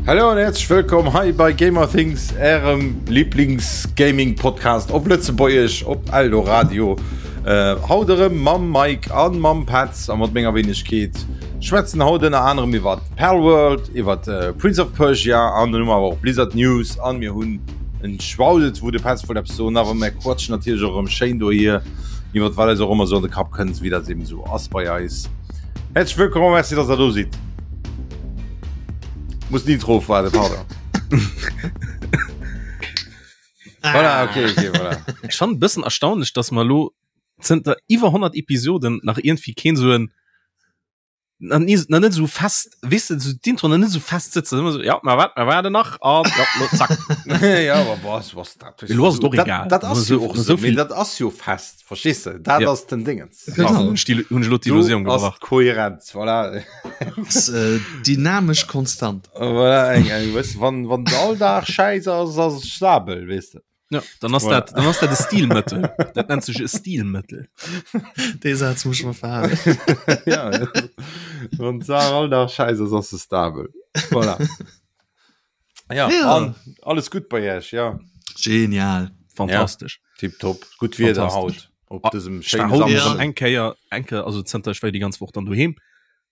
Hallo an herzlich wëllkomm hei bei Gamer Things, ärem Lieblings-Gaming-Podcast op Lëtzebuergesch op Eldoradio. Äh, haut erëm mam Mike an mam Petz a mat menger Wenegkeet. Schwätzen haut ënner anerem iwwer Palworld, iwwer äh, Prince of Persia an dann hu mer awer och Blizzard News an mir hunn en Schwaudet, wou de Petz wollt eppes soen, awer mir quatschen natierlech och erëm schéin dohier iwwer wat eis och ëmmer sou an de Kapp kënnt, wéi dat eben sou ass bei eis. Herzlich wëllkomm a merci, dass der do sidd. Muss den Intro ofwaarden, pardon. Voilà, okay, okay, voilà. Ech fand e bëssen erstaunlech, dass mer elo zënter iwwer 100 Episoden nach iergendwéi keen sou en nach nie, nach net sou fest, weess de, sou d'Intro nach net sou fest sëtzen. Ëmmer sou, ja, mer wat, mer waarden nach an ja, lo zack. ja, aber boah, was dat? Elo ass et och egal. Dat, dat ass jo och So so, vill- mee dat ass jo fest, verstees de? Dat Ja. ass den Dingens. Genau. Hunn ech déi- hunn ech elo d'Illusioun Do ass gebrach. d'Kohärenz, voilà. Ass, äh, dynamesch konstant. Voilà, eng, eng, weißt du, wann, wann all Dag scheiß ass, ass es stabel, weißt du. Ja, dann ass Voilà. dat, dann ass dat e Stilmëttel. Dat nennt sech e Stilmëttel. Dee Saz muss ich mal verhalen. ja, wann d'Saach all Dag scheiß ass, ass se stabel. Voilà. Ja, Ja. An, alles gut bei Iech, ja. Genial. Fantastesch. Tipptopp. Gutt Wieder Fantastesch. haut op Ah, dësem Ich war schéine haut Ja. erëm Samschden. eng Kéier, eng Kéier, also zënter ech war déi ganz Woch dann doheem,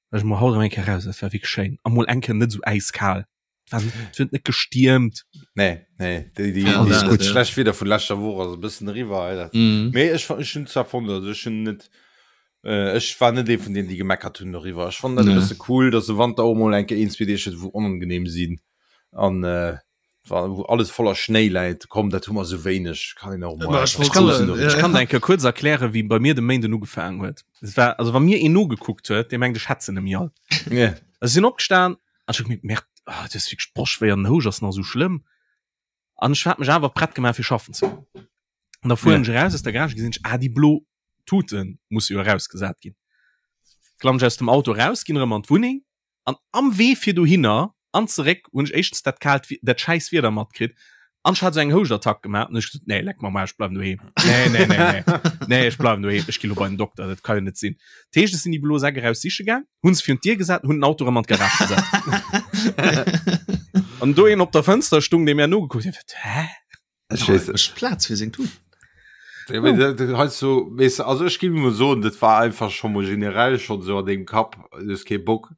war ech mol haut erëm eng Kéier raus, dat war wierklech schéin. A mol eng Kéier net esou äiskal. Et war, et huet net gestiermt. Nee, nee, déi, déi, Ja, déi dat, gutt ja. schlecht Wieder vun leschter Woch ass e bëssen eriwwer. Ey, dat. Mhm. Mee ech, ech hunn zwar fonnt, also ech hunn net, äh, ech war net ee vun deenen, déi gemeckert hunn doriwwer. Ech fannen dat e Nee. bësse cool, dass de Wanter och mol eng Kéier een, zwee Deeg huet, wou onangenehm sinn an äh, wou alles voller Schnéi läit. Komm, dat hu mer esou wéineg, kann een och mol Ma ech einfach wollt kann, soen, soen doriwwer. ech kann der eng Kéier kuerz erklären, wéi bei mir de Méinden ugefaangen huet. Es war, also wa mir een nogekuckt huet, dee mengt ech hätt se nemmi all. Yeah. Also ech sinn opgestan an ech hu gemierkt, Merde, ah, dat ass wierklech d'Broschtwéi an den Houscht ass nach esou schlëmm. An ech hat mech awer prett gemaach fir schaffen ze goen. An da fueren Yeah. ech eraus aus der Garage, gesinn ech, ah, déi blo Tute musse jo erausgesat ginn. Klammen ech aus dem Auto eraus, ginn erëm an d'Wunneng an am Wee fir dohinner an zeréck hunn ech éischtens dat kaalt, dat schäiss Wieder matkritt an ech hat esou eng Houschtattack gemaach an ech gesot, nee, leck mer am Aarsch, ech bleiwen doheem. Nee, nee, nee, nee, nee, ech bleiwen doheem, ech gi lo bei den Dokter, dat ka jo net sinn. Dat heescht, ech sinn déi blo Säck eraus siche gaang, hunn se virun d'Dier gesat an hunn den Auto erëm an d'Garage gesat. An do een op der Fënster stung, dee mir nogekuckt huet, hä? Ech weess Ech Plaz fir seng Tut. Ja, mee dat- dat heiansdo so, weess de, also ech géif emol soen, dat war einfach scho mol generell schonn esou an dengem Kapp, du hues kee Bock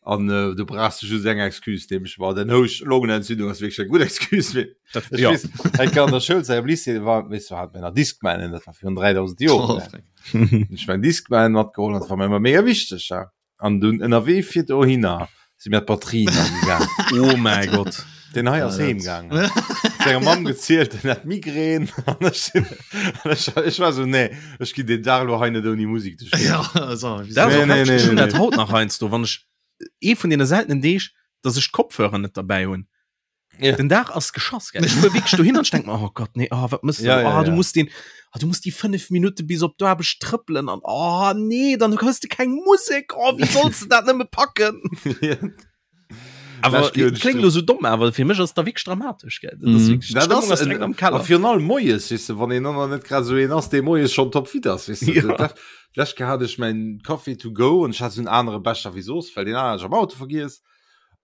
an äh, du brauchs just eng Excuse, nämlech war den Housch Longenentzündung ass wierklech eng gutt Excuse. Mee Dat, ech ja. weess, eng Kéier an der Schoulzäit am Lycée war, weess du, hat mir nach Discmanen, dat war virun 3000 Joren, Oh, ne? freck. Hunn ech mäin Discman matgeholl an dat war mir ëmmer mega wichteg, ja. An dunn ënnerwee fir dohinner si mir d'Batterien agegaang. Oh mäi Gott. Den hei ass Ja, heem dat- gaangen. Senger Mamm gezielt, en hat Migrän. An ech sinn, an ech, ech war so, nee, ech ginn den Dag lo hei net ouni Musik duerch d'Géigend. Ja, also, wieso? Dat ass Nee, och nee, heftig. nee, Ech hunn nee, dat haut nach heiansdo, wann ech ee vun deene seltenen Deeg, dass ech d'Kopfhörer net derbäi hunn. Ja. Den Dag ass geschoss gell. Ech fuer wierklech dohin an ech denk mer, oh Gott, nee, oh, wat mëss du? Ja, ja, oh, du ja. musst den, oh, du musst déi 5 Minutte bis op d'Aarbecht trëppelen an oh nee, dann hues du keng Musek. Oh, wéi solls du dat nëmme packen? Awer Lech ginn kléngt lo sou domm, awer fir mech ass da wierklech dramatesch gell. Dat ass Mhm. wierklech, Dat d'Stëmmung ass ass direkt am a Keller. virun allem moies, weess de, wann een dann net grad esou een ass, dee moies schonn topfit ass, weess de. Ja. Dat- Lech hat ech mäin Coffee to go an ech hat esou en anere Becher wéi soss, well deen aneren hat ech am Auto vergiess.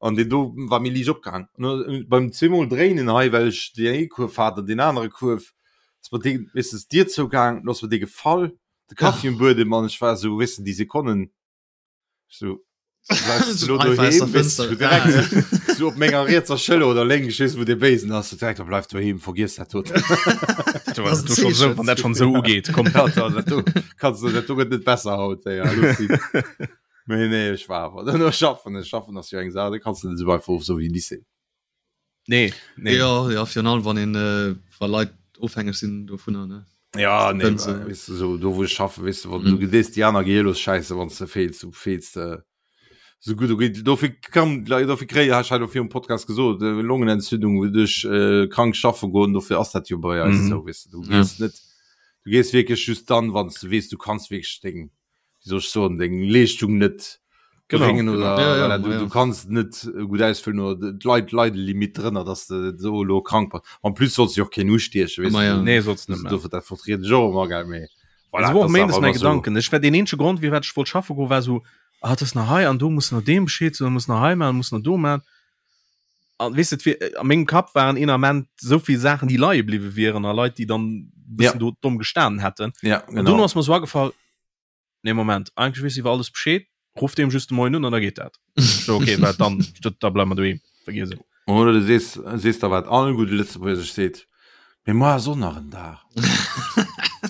An deen do war méi liicht opgehaang. An beim zweemol dréinen hei, well ech deen ee Kuerf hat an deen anere Kuerf, ass mer dee, weess de, d'Dier zougaang, du ass mer dee gefall, de Kaffi um Buedem an ech war esou, weess de, déi Sekonnen, esou, bleifs de lo doheem, weess de, direkt esou op menger rietser Schëller oder lénks, ech weess net, wou dee Béisen ass, sou direkt, bleif doheem, vergiess dat doten. Wann dat schonn esou ugeet, komm. Dat do kanns de, dat do gëtt net besser haut, ey, alles gutt. Nee, nee, ech war awer dann schaffen. Ech schaffen ass jo eng Saach, da kanns du net esou einfach of sou wéi Lycée. Nee, nee. Ja, ja, virun allem wann een äh, wa Leit ofhängeg sinn dovunner, ne? Ja, nee, Wenn se- weess du, so, do wou ech schaffen, weess du, wann Mhm. du gedees déi aner gehiellos Schäisse, wann s de feels, du feels de sou gutt, du geet dofir kann dofir kréie ech hat jo virum Podcast gesot, äh, Longenentzündung duerch äh, krank schaffe goen, dofir ass dat jo bei eis Mhm. esou, weess du, du Ja. gees net, du gees wierklech just dann, wann s du weess, du kanns wierklech deng wéi soll ech soen, deng Leeschtung net Genau, bréngen oder Ja, ja, voilà, du, ja. du kanns net gutt ausfüllen oder d'Leit leide Limit drënner, dass de so lo krank bass. En plus solls du jo och keen ustiechen, weess Ma du. ja. Nee, solls net Also, maachen. dofir dat vertrieden ech och ëmmer, gell, mee voilà, Also, war och dat ass méindes awer mäi ëmmer so. Gedanken. Ech war deen eenzege Grond, firwat ech wollt schaffe goen, war sou, ah, et ass nach hei an do, muss nach deem Bescheed soen, muss nach hei maachen, muss nach do maachen. An weess de, et a mengem Kapp waren een Ament esou vill Saachen, déi leie bliwwe wieren a Leit, déi dann bëssen do domm gestanen hätten. Ja, genau. An dono ass mer esou agefall, Nee, Moment, eigentlech weess iwwer alles Bescheed, ruff deem just de Moien un an da geet dat. So, okay, wat dann? Da bleiwe mer doheem, vergiess et. Oder du sees, sees der wat all gudde Lëtzebuerger sech seet, Mee muer ass och nach en Dag.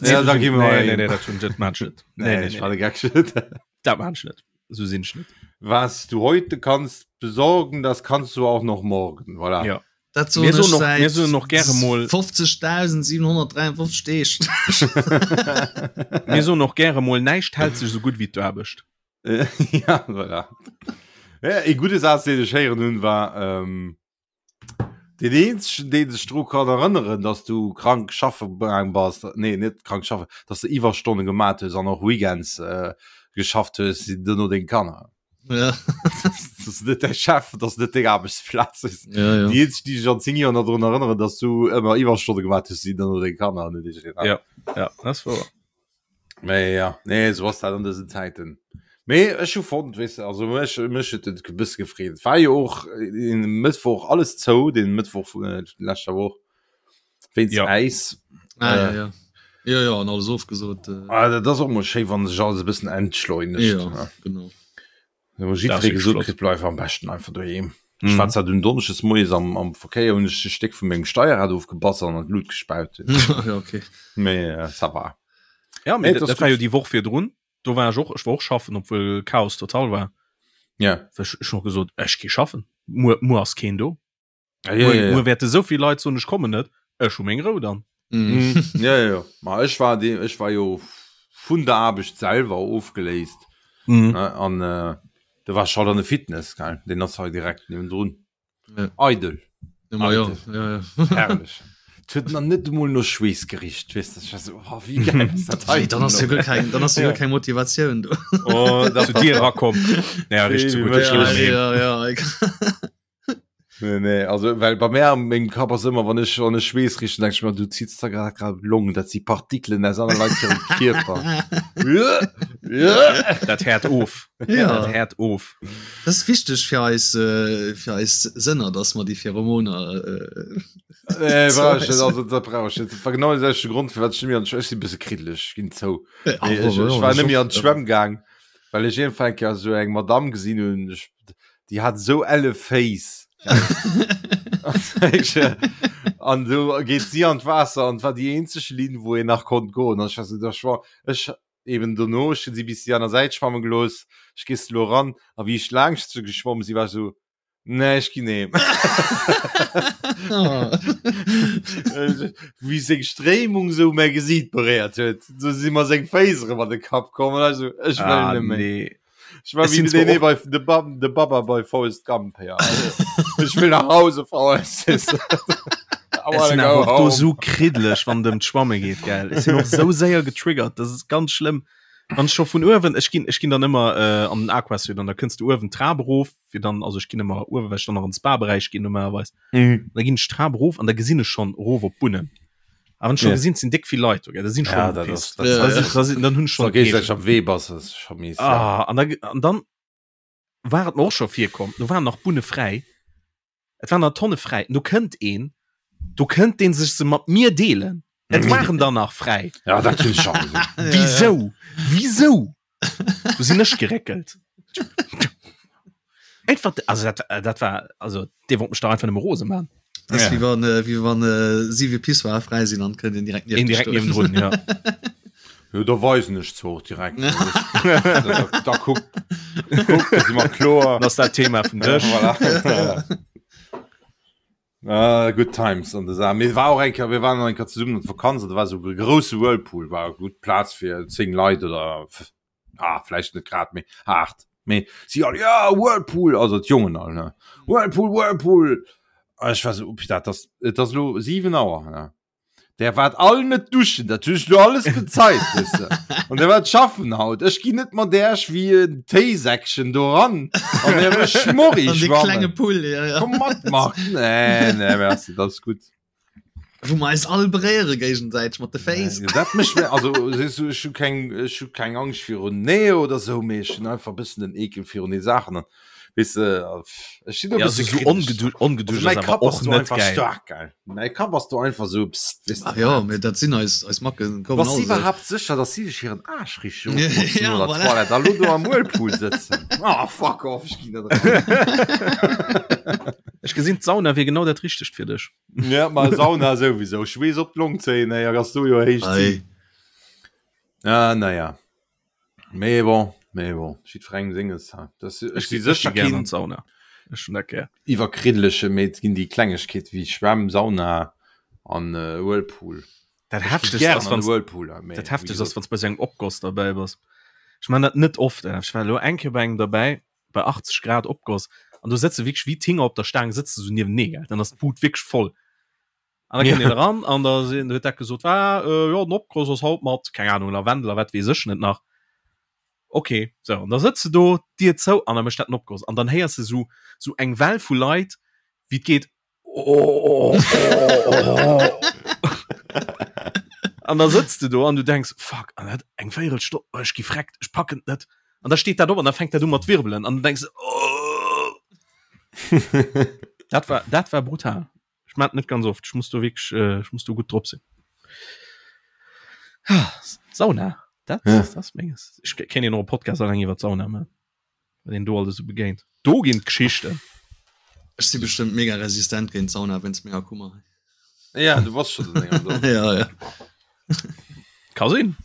Ja, da gi mer Nee, nee, nee, dat hunn, dat maan ech net. Nee, nee, ech war de Geck net. Dat maan ech net. Esou sinn ech net. Was du heute kannst besorgen, das kannst du auch noch morgen. Voilà. Ja. Dat soen Mir soen ech och, säit mir soen och gäre mol, 50.753 Deeg. mir soen och gäre mol, näischt hält sech esou gutt wéi d'Aarbecht. ja, voilà. Ja, e gudde Saz, deen ech héieren hunn, war, ähm, Den eenzegen, dee sech dru kann erënneren, dass du krank schaffe gaang bass, nee, net krank schaffen, dass de Iwwerstonne gemat hues an och Weekends äh, geschafft hues, sinn duerno deng Kanner. Ja. Das ass net däi Chef, das ass net deng Aarbechtsplaz. Ja, ja. Déi eenzeg, déi sech an 10 Joer nach drun erënneren, dass du ëmmer Iwwerstonne gemat hues, sinn duerno deng Kanner an net iergendeen Ja, ja, dat ass wouer. Mee ja, nee, sou ass dat an dësen Zäiten. Mee ech hu fonnt, weess de, also mech, mech huet et e bësse gefreet. Et war jo och den Mëttwoch alles zou, den Mëttwoch vun äh, leschter Woch, wéinst Ja. Äis. Ah, ja, Äh, ja. Ja, ja, an alles ofgesot. Äh, ah, dat ass och mol schéi, wann sech alles e bëssen entschleunegt. ja, ne? genau. Wo jiddweree gesot kritt, bleif am beschten einfach doheem. Ech war zwar dunn donneschdes moies am, am Verkéier, hunn ech e Stéck vu mengem Steierrad ofgebass an an d'Lut gespaut. ja, okay. Mee äh, ça va. Ja, mee Nee, dat, dat dat war jo gut. déi Woch virdrun. Do war ech och, ech war och schaffen, obwuel Chaos total war. Ja. Ech, ech hu gesot, ech gi schaffen. Muer, muer ass keen do. Ja, ja, Muer, ja, ja. muer wäerte sou vill Leit soen, ech kommen net. Ech hu meng Rou dann. Mhm. Mm, ja, ja, ja. Ma ech war de, ech war jo vun der Aarbecht selwer ofgeléist. Mhm. Ne? An äh, da war ech halt an de Fitness, gell? Den ass hei direkt niewendrun. Ja. Eidel. Ja, ma ja, Eidel. ja, ja. Herrlech. Et huet nach net emol no Schweess gericht, weess de. Ech war so, oh, wéi geil ass dat hei Wéi, dann ass jo guer keng, dann ass jo Ja. guer keng Motivatioun do. Oh, zu dir erakomm. Ja, richt so Wéi gutt. Ech Ja, ginn heem. ja, ja. Nee, nee, also well bei mir am mengem Kapp ass ëmmer wann ech wann ech Schweess richen, denk ich mir du ziehst da grad grad Long, dat si Partikelen aus aner Leit hirem Kierper. Dat häert of. Ja. Dat häert of. Dat ass wichteg fir eis äh, fir eis Sënner, dass mer déi Pheromoner äh, Nee, brauch ich net, also dat brauch ich net. Dat war genau de selwechte Grond, firwat ech net méi an d'Schwämm, ech si e bësse kriddeleg, ech ginn zou. Ah, Nee, ech, ech war net méi an d'Schwämm gaang, well ech iergendwann eng Kéier esou eng Madamm gesinn hunn, ech Déi hat esou elle Féiss. An du geet si an d'Waasser an war déi eenzeg Linn, wou een nach konnt goen. An ech war sou, da schwa ech eben dono, ech hunn si bis déi aner Säit schwamme gelooss, ech gees elo eran. A wéi ech laangscht se geschwomm si, war ech sou, nee, ech ginn heem. Wéi seng Stréimung sou mäi Gesiit beréiert huet, sou si mer seng Féiss erëm an de Kapp komm an ech sou, ech wëll Ah, net méi. nee. Ich war Es wie sind den zwar nee, bei de, ba de Baba bei Forrest Gump ja. Ich will nach Hause Forrest. Es sinn awer och do sou kriddlech wann et ëm d'Schwamme geet gell. Ech sinn och sou séier getriggert, dat ass ganz schlëmm. Wann ech scho vun uewen, ech ginn ech ginn dann ëmmer äh, an den Aquasuit an da kënns du uewen d'Trap erof fir dann also ech ginn ëmmer uewen, well ech dann nach an den Spa-Beräich ginn normalerweis. Mhm. Da ginn ech d'Trap erof an da gesinn ech schonn erof op d'Bunnen. A wann ech scho Ja. gesinn, et sinn déck vill Leit do, gell, da sinn ech Ja, schonn dat gepisst. ass, dat Ja, Da ja. sinn, da sinn, dann hunn ech Da schonn gees Eekel. am Wee bass, das ist schon mies. Ja. Ah, an da, an dann war et mer och scho virkomm, do waren nach Bunne fräi, et waren der Tonne fräi, do kënnt een, do kënnt deen sech se mat mir deelen. Et waren der nach fräi. Ja, dat hunn ech schon gesinn. Ja, ja. Wisou? Wisou? Do sinn ech geréckelt. Einfach, also dat, dat war, also dee wollt mech dach einfach nëmme rose man. Das Ja. wie wann äh, wie wann äh, siwe Pissoir frei sinn an kënnt een direkt Een direkt niewendrun, ja. Jo, da weisen ech zwar och direkt. da, da kuck, kuck, da si mer kloer. Dann ass dat Thema vum Dësch. Voilà. Ah, good times an der Saach. Mir war och eng Kéier, mir waren eng Kéier zesummen an d'Vakanz an da war esou e grousse Whirlpool, war gutt Plaz fir 10 Leit oder ah, vläicht net grad méi 8. Mee si all, ja, Whirlpool, also d'Jongen all, ne? Whirlpool, Whirlpool. A ech war esou, oh putain, et ass, et ass elo 7 Auer, ne? Der waart all net duschen, dat hunn ech lo alles bezeit, weess de. An der waart schaffen haut. Ech ginn net mat Äerch wéi en Téisäckchen do ran an Äre Schmorri An de klenge schwammen. Pull, ja, ja. Komm mat, Marc. Nee, nee, merci, dat ass gutt. Wou mer eis all beréiere géigesäiteg mat de Féiss. Nee, dat mécht mir, also, sees du, ech hu keng, ech hu keng Angscht virun Nähe oder sou, mee ech hunn einfach e bëssen den Ekel virun de Saachen. An. Weess de, ech sinn do e Ja, bësse so kritesch. ongedu ongeduscht Also ass mäi awer Kapp ass och do net einfach geil. staark, gell. Mäi Kapp ass do einfach sou, psst, weess de Ach ja, wat. mee dat sinn eis eis Macken kommen Bass all du esou. iwwerhaapt sécher, dass si sech hiren Aarsch richteg ofbotzen Ja, no der voilà. Toilette a lo do am Whirlpool sëtzen? Ah, fuck off, ech ginn net eran. Ech gesinn, d'Sauna wier genau dat Richtegt fir dech. Ja, ma Sauna souwisou. Schweess op d'Long zéien, ey, ass do jo héich Ei. Zit. Ah, naja. Mee bon, mee bon, jiddwerengem senges. Ha. Das, ech si sécher gär an keen d'Sauna. Ech hunn dat gär. iwwerkriddleche, mee et ginn déi Klengegkeete wéi Schwämm, Sauna an äh, Whirlpool. Dat Ech gi Heftegst gären ass, an wann de Whirlpool, ha, mee dat wéi Heftegst ass, gesot. wann s bei sou engem Opgoss derbäi bass. Ech man dat net oft, eh. Ech war elo eng Kéier bei engem derbäi, bei 80 Grad Opgoss, an do sëtze wierklech wéi d'Hinger op der Staang sëtze sou niewenee, gell. Dann ass d'Bud wierklech voll. An da kënnt een eran an da sinn, huet dat gesot, ah, äh, jo, den Opgoss ass haut mat, keng Ahnung, Lavendel a wat weess ech net nach. Okay, sou, an da sëtz de do, d'Dier zou, an da mécht dat den Opgoss. An dann héiers de sou, sou eng Well vu Leit, wéi et geet, Oh, oh, oh. An da sëtz de do an du denks, fuck, an dat eng Véierelstonn, oh, ech gi freckt, ech packen et net. An da steet dat op an da fänkt dat u mat wirbelen an du denks, oh. Dat war, dat war brutal. Ech mat net ganz oft, ech muss do wierklech, äh, ech muss do gutt drop sinn. Ah, Sauna, dat, Ja. dat ass menges. Ech kéint een och e Podcast alleng iwwer d'Sauna man. Wat een do alles sou begéint. Do ginn d'Geschichten. Ech si bestëmmt mega resistent géint Sauna wéinst menger Kummer. Ja, du bass schon länger do. ja, ja. Ka sinn.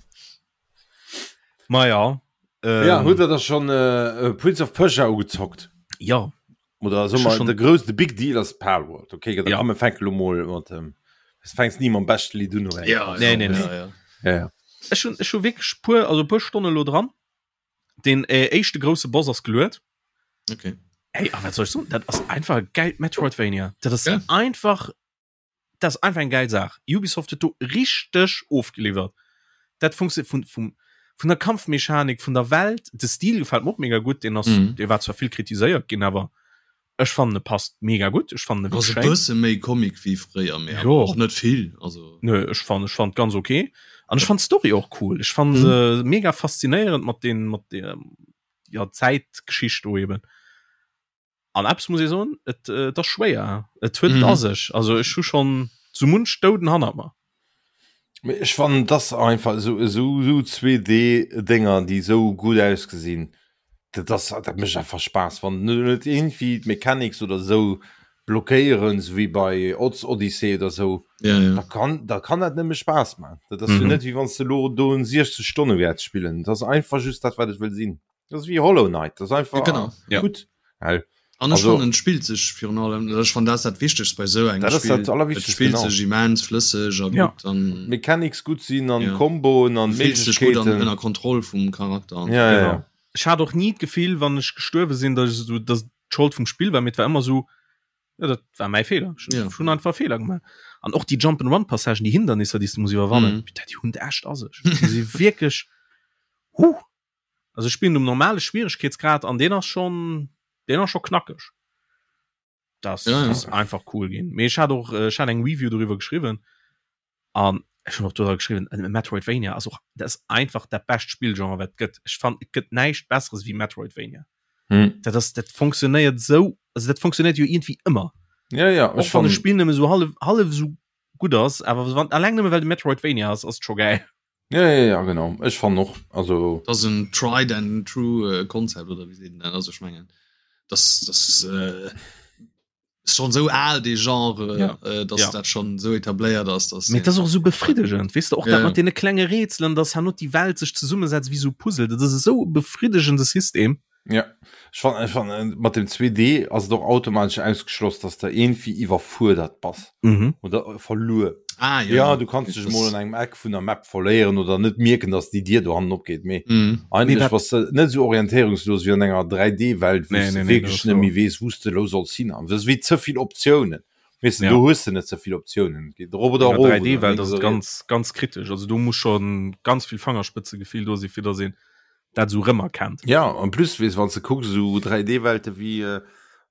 Ma ja. Ähm, ja, hutt der da schon äh, äh, Prince of Persia ugezockt? Ja. Oder so mal, der größte Big Deal ass Palworld. Okay, da ja. komme fänk lo mol mat dem. Es fängst nie mam beschte Lied un. Ja, nee, nee, nee. Ja, ja. Ja, ja. Ech hun, ech hu wierklech puer, also puer Stonne lo dran. Den äh, éischte grousse Boss ass geluet. Okay. Ey, a wat soll ech soen? Dat ass einfach e geilt Metroidvania. Dat ass Ja. einfach, dat ass einfach eng geil Saach. Ubisoft huet do richteg ofgeliwwert. Dat funktioniert vun, vum, vun der Kampfmechanik, vun der Welt. De Stil gefält mir och mega gutt. Deen ass, Mhm. dee war zwar vill kritiséiert ginn, awer ech fannen e passt mega gutt. Ech fannen e Ass wierklech e schéin. bësse méi Comic wéi fréier, mee Jo. awer och net vill. Also Nö, ech fand ech fand ganz okay. An ech fand d'Story och cool. Ech fand se mega faszinéierend mat den mat der ja Zäitgeschicht do eben. An eppes muss ee soen, et äh, et ass schwéier. Et huet et Mhm. a sech. Also ech hu schonn sou munch Douden hannert mer. Mee ech fannen dass einfach esou esou esou 2D Dénger déi esou gutt ausgesinn, dat ass dat mécht einfach Spaass wann net iergendwéi d'Mechanics oder esou blockéieren, esou wéi bei Odds Odyssey oder esou, ja, ja. da kann da kann dat nëmme Spaass man. Dat ass jo Mhm. net wéi wann s de elo do en 60 Stonne wäerts spillen. Dat ass einfach just dat wat et wëll sinn. Dat ass wéi Hollow Knight, dat ass einfach Ja, genau. Ja. gutt. Well An ech Also- fannen et spillt sech virun allem, ech fannen dat ass dat Wichtegst bei esou engem Dat ass Spill, dat Allerwichtegst, et spillt genau. sech immens flësseg a Ja. gutt an Mechanics gutt sinn an Ja. Komboen an du fills dech gutt an Méiglechkeeten. ënner Kontroll vum Charakter an Ja, ja, Genau. ja. Ech hat och ni d'Gefill, wann ech gestuerwe sinn, datt ech esou, datt d'Schold vum Spill war, mee et war ëmmer esou, ja, dat war mäi Feeler. Ech Ja. hunn einfach Feeler gemaach. An och déi Jump-and-Run-Passagen, déi Hindernisser, déi s du muss iwwerwannen, Mhm. bitte, déi hunn et echt a sech. Déi si wierklech, huh! Also ech spillen um normale Schwieregkeetsgrad an deen ass schon deen ass schon knackeg. Das Ja, ja. ass einfach cool ginn. Mee ech hat och äh, ech hat eng Review doriwwer geschriwwen an ech hunn och doriwwer geschriwwen äh, Metroidvania ass och dat ass einfach dat bescht Spillgenre wat et gëtt. Ech fand et gëtt näischt besseres wéi Metroidvania. Hm. Dat ass dat funktionéiert sou also dat funktionéiert jo iergendwéi ëmmer. Ja, ja, Och ech wann e fand Spill nëmme sou hallef hallef sou gutt ass, awer wann alleng nëmme well de Metroidvania ass, ass et scho gäil. Ja, ja, ja, genau. Ech fannen och, also. Dat ass en tried and true äh, Konzept oder wéi seet een dat? Also ech mengen das das äh, ist schon sou al dee Genre, Ja. äh, dass Ja. dat schon sou etabléiert ass, dass Mee dat ass och sou befriddegend, weess de, och Ja, dat ja. mat deene klenge Rätselen, dass herno déi Welt sech zesummesetzt wéi sou Puzzle, dat ass esou e befriddegende System. Ja, ech fannen, ech fannen, mat dem 2D ass et och automatesch ausgeschloss, dass de iergendwéi iwwerfuerdert bass Mhm. oder verluer. Ah, ja, Ja, du kanns dech mol an engem Eck vun der Map verléieren oder net mierken, dass déi Dier do hannen opgeet, mee Mhm. eigentlech Mee wat- bass de net esou orientéierungslos wéi an enger 3D-Welt, wou Nee, s de nee, nee, dat wierklech ass net wouer. méi weess, wou s de elo solls hin. An dat ass wéi ze vill Optiounen. Weess de, Ja. do hues de net ze vill Optiounen. Et geet erop oder An erof der oder 3D-Welt lénks ass et oder riets. ganz, ganz kritesch. Also do muss schon ganz vill Fangerspëtzegefill do sinn, fir dass een dat esou rëmerkennt. Ja, en plus, weess, wann s de kucks, esou 3D-Welte wéi.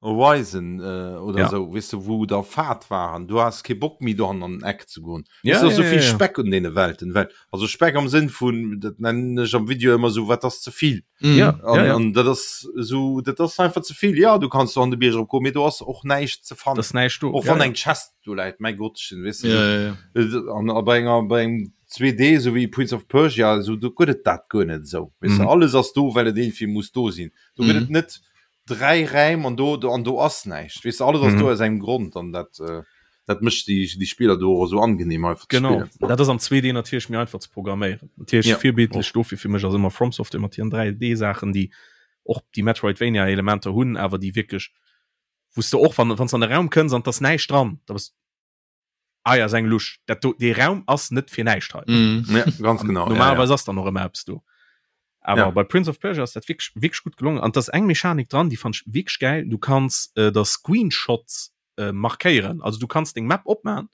Horizon äh, oder Ja. sou, weess de, wou der Fahrt war an du has kee Bock méi do an den Eck ze goen. Ja, Weess de, ja, sou vill ja, ja. Speck un deene Welten, well also Speck am Sënn vun, dat nennen ech am Video ëmmer sou, wat ass ze vill. Mhm. Ja, An, ja, ja. an dat ass sou, dat ass einfach ze vill. Ja, du kanns do an de Bierg eropgoen, mee do ass och näischt ze fannen. Das ist näischt do. Och Ja, wann ja. eng Chest do läit, mäi Gottchen, weess de, Ja, ja, ja. An a bei enger bei engem 2D sou wéi Prince of Persia, sou do gëtt et dat guer net esou. Weess de, Mhm. alles ass do, well et iergendwéi muss do sinn. Do gëtt Mhm. et net 3 Räim an do an do ass näischt. Weess de, alles ass Mhm. do aus engem Grond an dat äh, dat mécht déi déi Spiller do och esou angenehm einfach ze Genau. spillen. Dat ass am 2D natierlech méi einfach ze programméieren. Natierlech Ja. virbildlech dofir fir mech ass ëmmer From Software mat hiren 3D-Saachen, déi och déi Metroidvania-Elementer hunn, awer déi wierklech, wou s de och wann wann s de an de Raum kënns an 't ass näischt dran, da bass Ah ja, ass eng Lusch. Dat do, dee Raum ass net fir näischt hei. Mm. Ja, ganz genau. Normalerweis ass dann och ëmmer eppes do. Awer Ja. bei Prince of Persia ass dat wierklech, wierklech gutt gelongen. An 't ass eng Mechanik dran, déi fand ech wierklech gäil. Du kanns äh, der Screenshots äh, markéieren. Also du kanns deng Map opmachen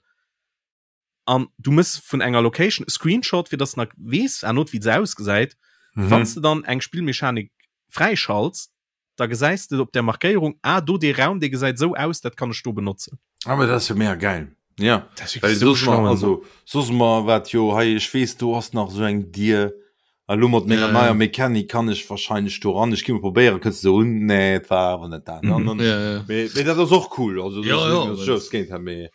an du mëss vun enger Location e Screenshot, fir dass de nach weess herno wéi se ausgesäit. Mhm. Wann s de dann eng Spillmechanik fräischalts, da gesäis de op der Markéierung, ah do dee Raum dee gesäit esou aus, dat kann ech do benotzen. Ah, awer dat ass jo mega gäil. Ja. Dat ass Well wierklech esou soss mer, schlau. also soss mer wat jo hei, ech weess do ass nach esou eng Dier, a lo mat menger Ja, ja. neier Mechanik kann ech wahrscheinlech do ran, ech gi mol probéieren, kënns de un, nee et war awer net dat. An Mhm. dann, Ja, ja. mee, mee dat ass och cool, also Ja, ja, dat ass just géint dat, mee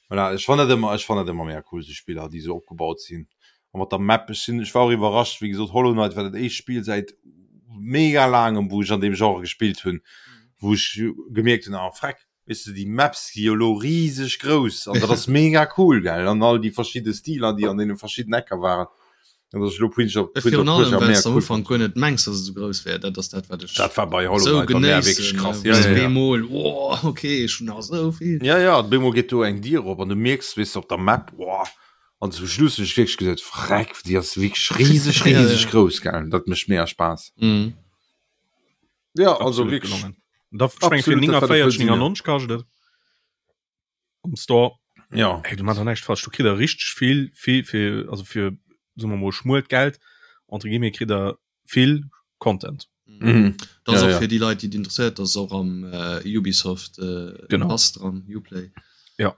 voilà, ech fannen dat ëmmer, ech fannen dat ëmmer mega cool, esou Spiller déi esou opgebaut sinn. A mat der Map, ech sinn, ech war och iwwerrascht, wéi gesot, Hollow Knight war dat éischt Spill säit mega laangem, wou ech an deem Genre gespillt hunn, wou ech gemierkt hunn, ah freck, weess de, déi Maps si jo elo riseg grouss an dat ass mega cool, gell, an all déi verschidde Stiler, déi an deene verschidden Ecker waren. An dass ech elo Prince of, Prince of Virun allem, Persia well mega s du am cool Ufank guer net mengs, dass et esou grouss wär. Dat ass dat, wat ech Dat war bei Hollow esou Knight bei mär wierklech genéissen, krass. wou Ja, s ja, du ja. bemol, oh, okay, ech hunn nach esou vill. Ja, ja, op eemol geet do eng Dier op an du mierks, weess de, op der Map, oh, an zum Schluss hunn ech wierklech gesot, Freck, déi ass wierklech riseg, Ja, riseg ja. grouss, gell. Dat mécht mega Spaass. Mhm. Ja, also Absolut wierklech. gelongen. Da ech meng fir Absolut, dat wat et wëll sinn, ja. 49,99 kascht et am Store. Ja. Hey, du machst näischt falsch. Du kritt der richteg vill, vill fir also fir soe mer mol schmuelt Geld entre guillemets kritt der vill Content. Mhm. Dat ass Ja, och ja. fir déi Leit, déi et interesséiert, dat ass och am äh, Ubisoft äh, Genau. Pass dran, Uplay. Ja.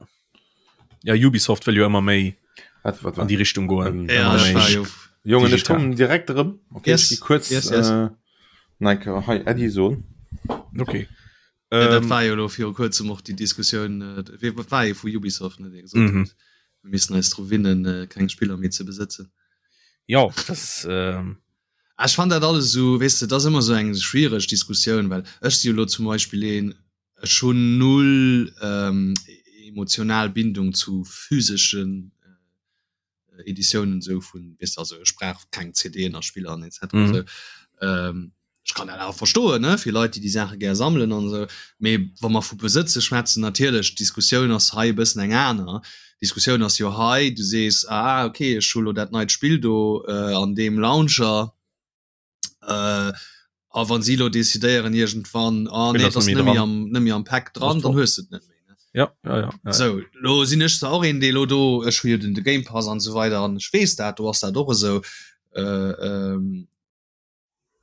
Ja Ubisoft wëll jo ëmmer méi Wat, wat, an wat? déi Richtung goen. Ähm, Ja, Ëmmer ech méi war jo Jongen, ech digital. kommen direkt erëm. Okay, Yes, ech gi kuerz yes, yes. äh, Nike, hei Äddi soen. Okay. Ja, dat Ähm, war jo lo viru kuerzem och déi Diskussioun, äh, wee wat war ee vu Ubisoft, ne, dee gesot Mhm. huet, mir missten eis dru winnen, äh, keng Spiller méi ze besëtzen. ja, das ähm, Ah, Ech fand dat alles esou, weess de, dat ass ëmmer esou eng schwiereg Diskussioun, well ech si jo lo zum Beispill een, ech hunn null ähm, emotional Bindung zu physeschen äh, Editiounen esou vun, weess de, also ech brauch keng CDen a Spiller an etc. Mhm. Esou. Ähm, ech kann dat awer verstoen, ne, fir Leit, déi déi Saache gär sammelen an esou. Mee wa mer vu Besëtze schwätzen, natierlech, d'Diskussioun ass hei e bëssen eng aner. D'Diskussioun ass jo hei, du sees, ah, okay, ech hu lo dat neit Spill do äh, an deem Launcher, äh, a wann si lo decidéieren iergendwann, ah, Spill nee, ass et ass net méi net méi dran. am, net méi am Pack dran, Ass dann top. hues de et net méi. Ne? Ja, ja, ja, ja. Sou, lo sinn ech zwar och een, dee lo do, ech hu jo den de Game Pass an esou weider an ech weess dat, do ass dat och esou. Äh, ähm,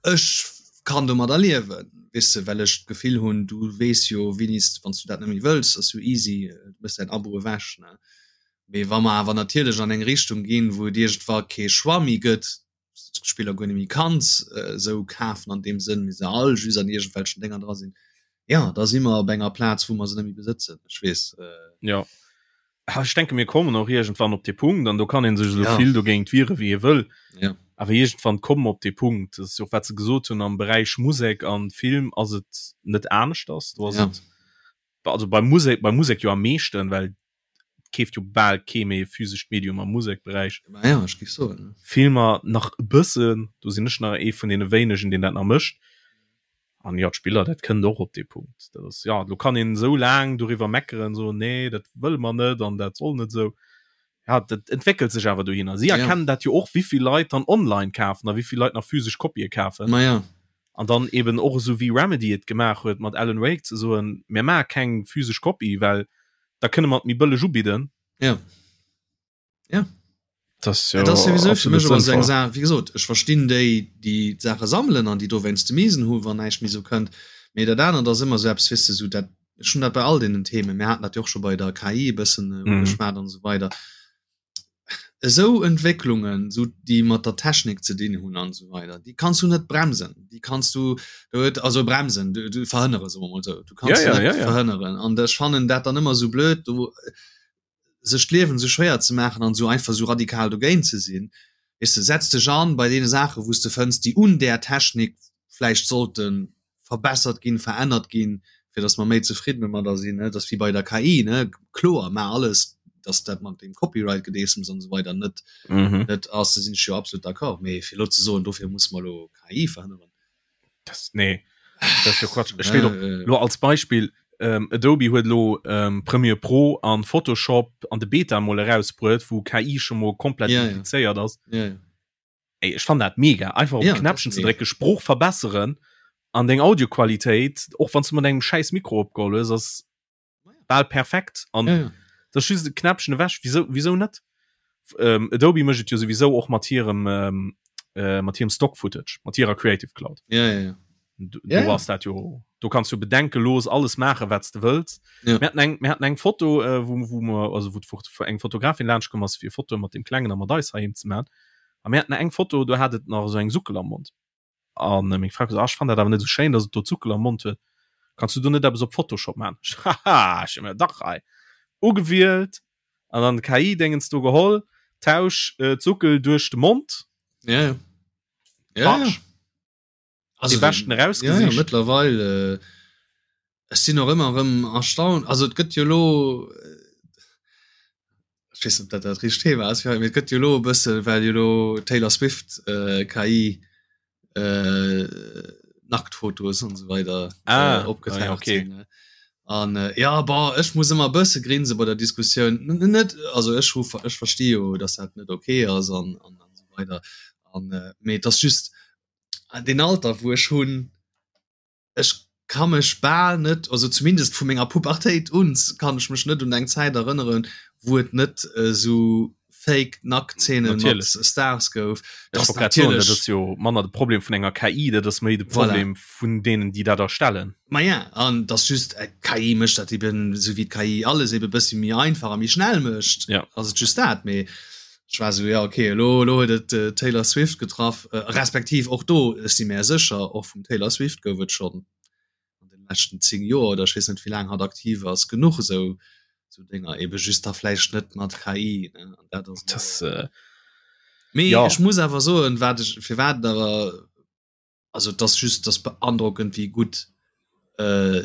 Ech kann domadder liewen, weess de, well ech d'Gefill hunn, du weess jo wéini s, wann s du dat net méi wëlls, ass jo easy, du méchs däin Abo ewech, ne. Mee wa mer awer natierlech an eng Richtung ginn, wou et iergendwa kee Choix méi gëtt, s du d'Spiller guer net méi kanns esou kafen an deem Sënn, mee se all just an iergendwelchen Dénger dra sinn, jo, da si mer op enger Plaz, wou mer se net méi besëtzen. Ech weess. Jo. Ech denke mir kommen och iergendwann op dee Punkt, an do kann ee sech esou Ja. vill dogéint wiere wéi ee wëll, Ja. awer iergendwann komme mer op dee Punkt, dat ass jo och wat se gesot hunn, am Beräich Musek an Film ass et net aneschters, do ass Ja. et, also bei Musek, bei Musek jo am meeschten, well et keeft jo bal kee méi e physescht Medium am Musekberäich. Ma ja, ech géif soen, ne. Filmer nach e bëssen, do sinn ech nach ee vun deene wéinegen, deen dat nach mécht. An jo, d'Spiller, dat kënnt och op dee Punkt. Dat ass, jo, elo kann een esou laang doriwwer meckeren, soen, nee, dat wëlle mer net an dat soll net esou. Ja, dat entwéckelt sech awer dohinner. Si Ja. erkennen dat jo och, wéi vill Leit dann online kafen a wéi vill Leit nach physesch Kopië kafen. Ma ja. An dann eben och esou wéi Remedy et gemaach huet mat Alan Wake, ze soen, mir maache keng physesch Kopie, well da kënne mer et méi bëlleg ubidden. Ja. Ja. Das ja, das sowieso für mich aber so eng sinnvoll. Saach, wie gesot, ech verstinn déi, déi d'Saache sammelen an déi dowéinst de Miesen hu wann näischt méi sou kënnt. Mee dat anert ass ëmmer esou eppes, weess de, esou dat, ech hunn dat bei all deenen Themen, mir haten dat jo och scho bei der KI e bëssen ugeschwat an esou weider, esou Entwécklungen, esou déi mat der Technik ze dinn hunn an esou weider, déi kanns du net bremsen, déi kanns du, do huet, also bremsen, du, du verhënnere, soe mer mol esou, du kanns se net verhënneren. An ech fannen dat dann ëmmer esou blöd, do sech d'Liewen esou schwéier ze maachen an esou einfach esou radikal dogéint ze sinn. Weess de, setz dech an bei deene Saache wou s de fënns, déi un där Technik vläicht sollte verbessert ginn, verännert ginn, fir datt mer méi zefridden domadder sinn. Et ass wéi bei der KI, ne, kloer, maach alles, datt dat mat deem Copyright-Gedeessems an esou weider net net ass, do sinn ech jo absolut d'accord. Mee fir elo ze soen, dofir musse mer elo KI verhënneren, Das, nee, das ist jo Quatsch. Ech weess och, lo als Beispill, ähm, Adobe huet lo ähm, Premiere Pro an Photoshop an de Beta mol erausbruet, wou KI schon mol komplett Ja, ja. implizéiert ass. Ja, ja. Ey, ech fann dat mega. Einfach op Ja, ja, Knäppchen das ze mega. drécken, Sprooch verbesseren an deng Audioqualitéit, och wann du mat engem schäiss Mikro opgeholl hues, ass bal perfekt an ja, ja. das just e Knäppchen ewech wieso wieso net ähm, Adobe mécht et jo sowieso och mat hirem ähm, äh, mat hirem Stock Footage mat hirer Creative Cloud ja, ja, ja. du, Ja, du ja. ass dat jo du kannst jo bedenkelos alles maache wat du wëlls Ja. mir hatten eng mir hatten eng Foto äh, wo wo mer also wo d'Fo- eng Fotografin laanscht komm ass fir Foto mat dem klengen a mat eis heiheem ze man a mir hatten eng Foto do hat et nach esou eng Suckel am Mond An meng Fra gesot, ah, ech fannen dat awer net esou schéin, dass et do Zuckel am Mond huet. Kanns du do net eppes op Photoshop maachen? Ech, haha, ech hu mir dach hei ugewielt an dann KI-Dingens do geholl, tausch äh, d'Suckel duerch de Mond. Ja, ja. Ja, ja. Patsch. Also, Dee beschten ja, ja, erausgesicht. mëttlerweil äh, ech sinn och ëmmer erëm erstaunt. Also et gëtt jo lo äh, ech weess net, ob dat dat richtegt Thema ass fir haut, mee et gëtt jo lo e bësse well jo lo Taylor Swift äh, KI äh, Nacktfotos an esou weider Ah, äh, ah ja, opgetaucht okay. sinn. Ne? An äh, ja bon, ech muss ëmmer e bësse grinse bei der Diskussioun. N net also ech hu ech versti jo, datt dat net okay ass an an an esou weider an äh, mee et ass just deen Alter wou ech hunn, ech ka mech bal net, also zumindest vu menger Pubertéit un kann ech mech net un eng Zäit erënneren, wou et net esou fake Nacktzeene mat Stars gouf. Ech wollt grad soen, dat ass jo manner de Problem vun enger KI, dat ass méi de Problem voilà. vun deenen, déi dat erstellen. Ma ja, an dat just äh, KI mécht dat eben, esou wéi d'KI alles eben e bëssi méi einfach a méi schnell mécht. Ja. Ass et just dat, mee Ech war sou, ja okay, elo elo huet et d'Taylor Swift getraff, respektiv och do, ech si mär sécher, och vum Taylor Swift gouf et schonn an de leschten 10 Joer oder ech weess net wéi laang hatt aktiv ass, genuch esou esou Dénger, ebe just da vläicht net mat KI, ne, an dat ass Das, äh, Mee ja. ech muss awer soen, wat ech, firwat et awer Also et ass just, et ass beandrockend wéi gutt äh,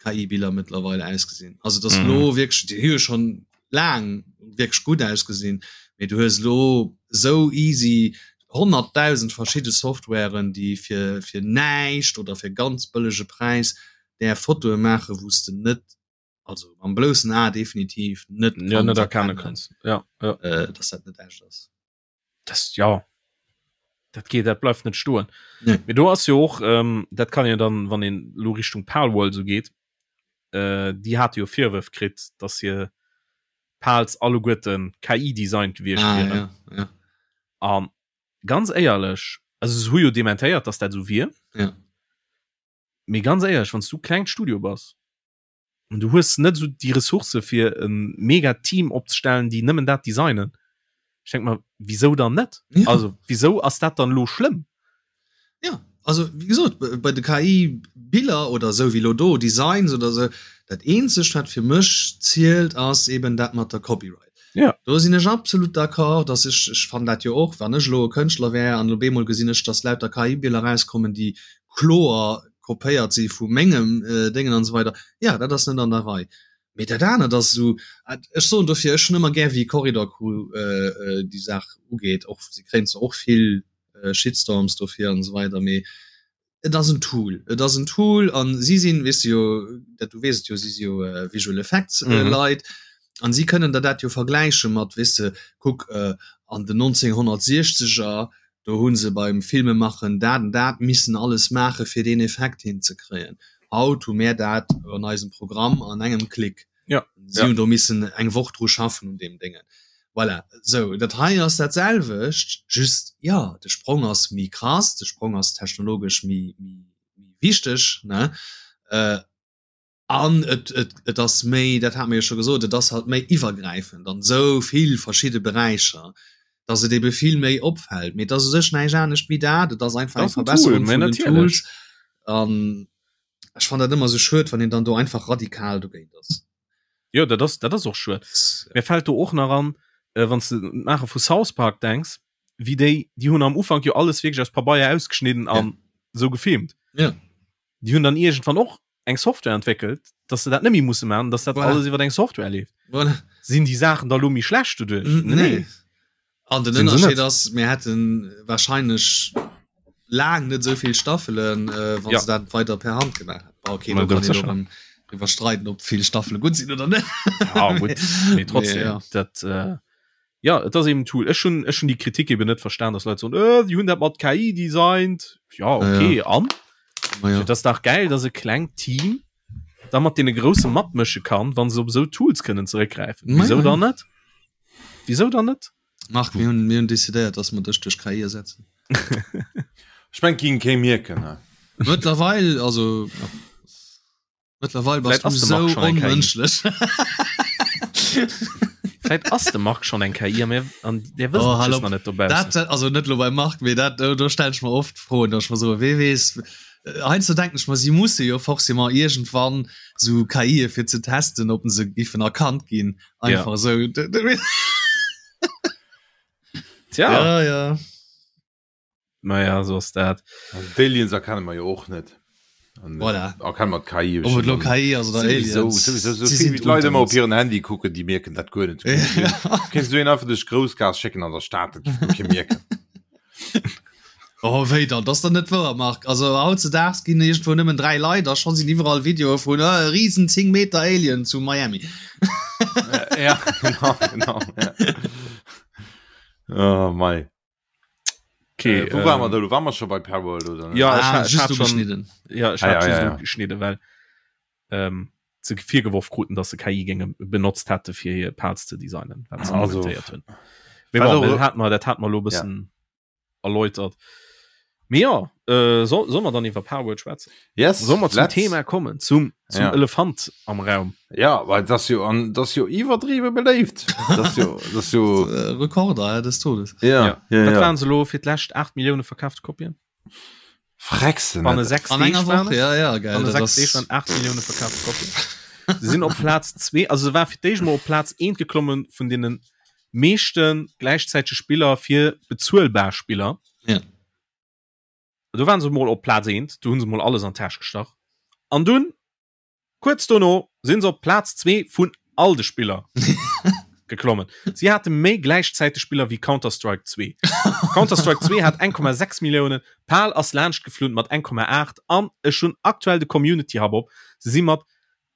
KI-Biller mëttlerweile ausgesinn. Also et ass mm. lo wierklech, déi hu jo schon laang wierklech gutt ausgesinn, mee du hues lo sou easy 100.000 verschidde Softwaren, déi fir, fir näischt oder fir ganz bëllege Präis där Fotoe maachen, wou s de net, also mam bloussen A definitiv net ja, net erkennen kanns, ja, ja. Äh, dass dat net echt ass. das ja dat geht dat bleift net stoen nee. Mee do ass jo och ähm, dat kann jo dann wann een lo Richtung Palworld so geht äh, déi hat jo Virwërf kritt dass hir Pals alleguerten KI designt gewiescht ah, wieren ja, ja. an ganz éierlech also se hu jo dementéiert dass dat sou wier ja. mee ganz éierlech wanns du klengt Studio bass an du hues net esou déi Ressourcë fir e mega Team opzestellen, déi nëmmen dat designen. Ech denk mer, wisou dann net? Ja. Also wisou ass dat dann elo schlëmm? Ja, also wéi gesot, bei de KI-Biller oder esou wéi elo do Designs oder esou, dat eenzegt wat fir mech zielt ass eben dat mat der Copyright. Ja. Do sinn ech absolut d'accord, dass ech, ech fannen dat jo och, wann ech elo e Kënschtler wär an op eemol gesinn ech, dass lauter KI-Biller erauskommen, déi kloer kopéiert si vu mengem Déngen an esou weider, jo, dat ass net an der Rei. Mee dat anert ass esou, ech soen dofir, ech hunn ëmmer gär wéi Corridor Crew déi Saach ugeet, och si kréien zwar och vill Shitstorms dofir an esou weider, mee et ass en Tool, et ass en Tool an si sinn, weess de jo, dat du weess et jo, si si jo Visual Effects Leit an si kënnen der dat jo vergläiche mat, weess de, kuck an den 1960er Do hu se beim Filmemaachen dat an dat missen alles maache fir deen Effekt hinzekréien. Haut hu mär dat an eisem Programm an engem Klick. Ja. Si hunn do missen eng Woch dru schaffen un deem Déngen. Voilà. Sou, dat hei ass dat selwecht, just, jo, de Sprong ass méi krass, de Sprong ass technologesch méi, méi, méi. wichteg ne äh, an et, et, et ass méi, dat hat mir jo scho gesot, et ass halt méi iwwergräifend an esou vill verschidde Beräicher, dass et ebe vill méi opfält. Mee et ass u sech näischt anescht wéi dat, et ass einfach eng Verbesserung vun den Tools. An ech fannen dat ëmmer esou schued, wann een dann do einfach radikal dogéint ass. Jo, dat ass, dat ass och schued. Mir fält do och nach an, äh, wann s de un d'Maache vu South Park denks, wéi déi, déi hunn am Ufank jo alles wierklech aus Pabeier ausgeschnidden an esou gefilmt. Ja. Déi hunn dann iergendwann och eng Software entwéckelt, dass se dat net méi musse maachen, dass dat Voilà. alles iwwer eng Software leeft. Voilà. Sinn déi Saachen da lo méi schlecht doduerch? Nee. nee. An den Sinn se Ënnerscheed net. ass, mir hätten wahrscheinlech laang net esou vill Staffelen, äh, wann Ja. se dat weider per Hand gemaach hätten. Bah, okay, Ma do kann ganz een sécher. och erëm driwwer streiden, ob vill Staffele gutt sinn oder net. Ja, gutt. Mee trotzdem, Mee, ja. dat, äh, ja, et ass eben en Tool. Ech hunn, ech hunn déi Kritik eben net verstan, dass Leit soen, äh, déi hunn dat mat KI designt. Ja, okay, Ja. an? Ma ja. Et ass dach gäil, dass e klengt Team da mat deene Grousse matmësche kann, wann se op esou Tools kënnen zeréckgräifen. Ma Wisou ja. dann net? Wisou dann net? Marc, mir hunn, mir hunn decidéiert, dass mer dech duerch KI ersetzen. Ech mengen, ging kee mierken, ne? Mëttlerweil, also, ja. Mëttlerweil bass Vläit ass du de Marc sou schonn eng KI. onmënschlech. Vläit ass de Marc schonn eng KI a mir an der wëssen Oh, et hal just op. nach net dobaussen. Dat, dat, also net lo beim Marc, mee dat, do, do stellen ech mer oft Froen, dass ech mer soen, wee weess, heiansdo denken ech mer, si musse jo forcément iergendwann sou KIe fir ze testen, ob se giffen erkannt ginn, Ja. einfach esou. Tja. Ja, ja. Naja, so ass dat. Also d'Aliens erkenne mer jo och net. An Voilà. erkenne mer d'KI Ob et lo KI ass oder Sowieso, Aliens. sowieso, so Sie vill sind wéi d'Leit unter ëmmer op uns. hiren Handy kucken, déi mierken dat guer net. Kéints du een einfach duerch d'Groussgaass schécken an der Stad, dat géif guer kee mierken. Oh wéi dann? Dat ass dann net wouer, Marc. Also hautzedaags ginn iergendwou nëmmen 3 Leit a scho sinn iwwerall Videoe vun äh, riesen 10 Meter Alien zu Miami. Ja, genau, genau. Ja. Oh mei. Okay, äh, wo waren wir da? Waren wir schon bei Palworld oder? Ja, ah, ich, ich just hat schon, ugeschnidden. ja, ich Ah, hat ja, just ja, ja. ugeschnidden, well ähm, se virgeworf kruten, dass se KI-Gänge benotzt hätte fir hir Pals ze designen, wat se Also, inventéiert hunn. Mee wat bon, och- dat hat mer, dat hat mer lo bëssen erläutert. Mee ja, äh, soll, soll mer dann iwwer Palworld schwätzen? Yes, Soll mer zum let's. Thema kommen, zum, zum Ja. Elefant am Raum? Ja, well das jo an das jo iwwerdriwwe beléift. Das jo das jo Äh, Rekorder des Todes. ja, ja, ja, Wat ja. waren se lo fir d'lescht 8 Millioune verkaafte Kopien? Freckst Banne net. 6 An Deeg enger waren Woch, et? ja, ja, geil. Banne Dat 6 ass- Deeg waren 8 Millioune verkaafte Kopien. Se sinn op Plaz 2, also se war fir d'éischt mol op Plaz 1 geklommen vun deene meeschte gläichzäitege Spiller fir bezuelbar Spiller. Ja. Do waren se mol op Plaz 1, do hunn se mol alles an d'Täsch gestach. An dunn, kuerz dono, sinn se op Plaz 2 vun all de Spiller geklommen. Si hate méi gläichzäiteg Spiller wéi Counter-Strike 2. Counter-Strike 2 hat 1,6 Milliounen, Pal ass laanscht geflunn mat 1,8 an ech hunn aktuell de Community Hub op, se si mat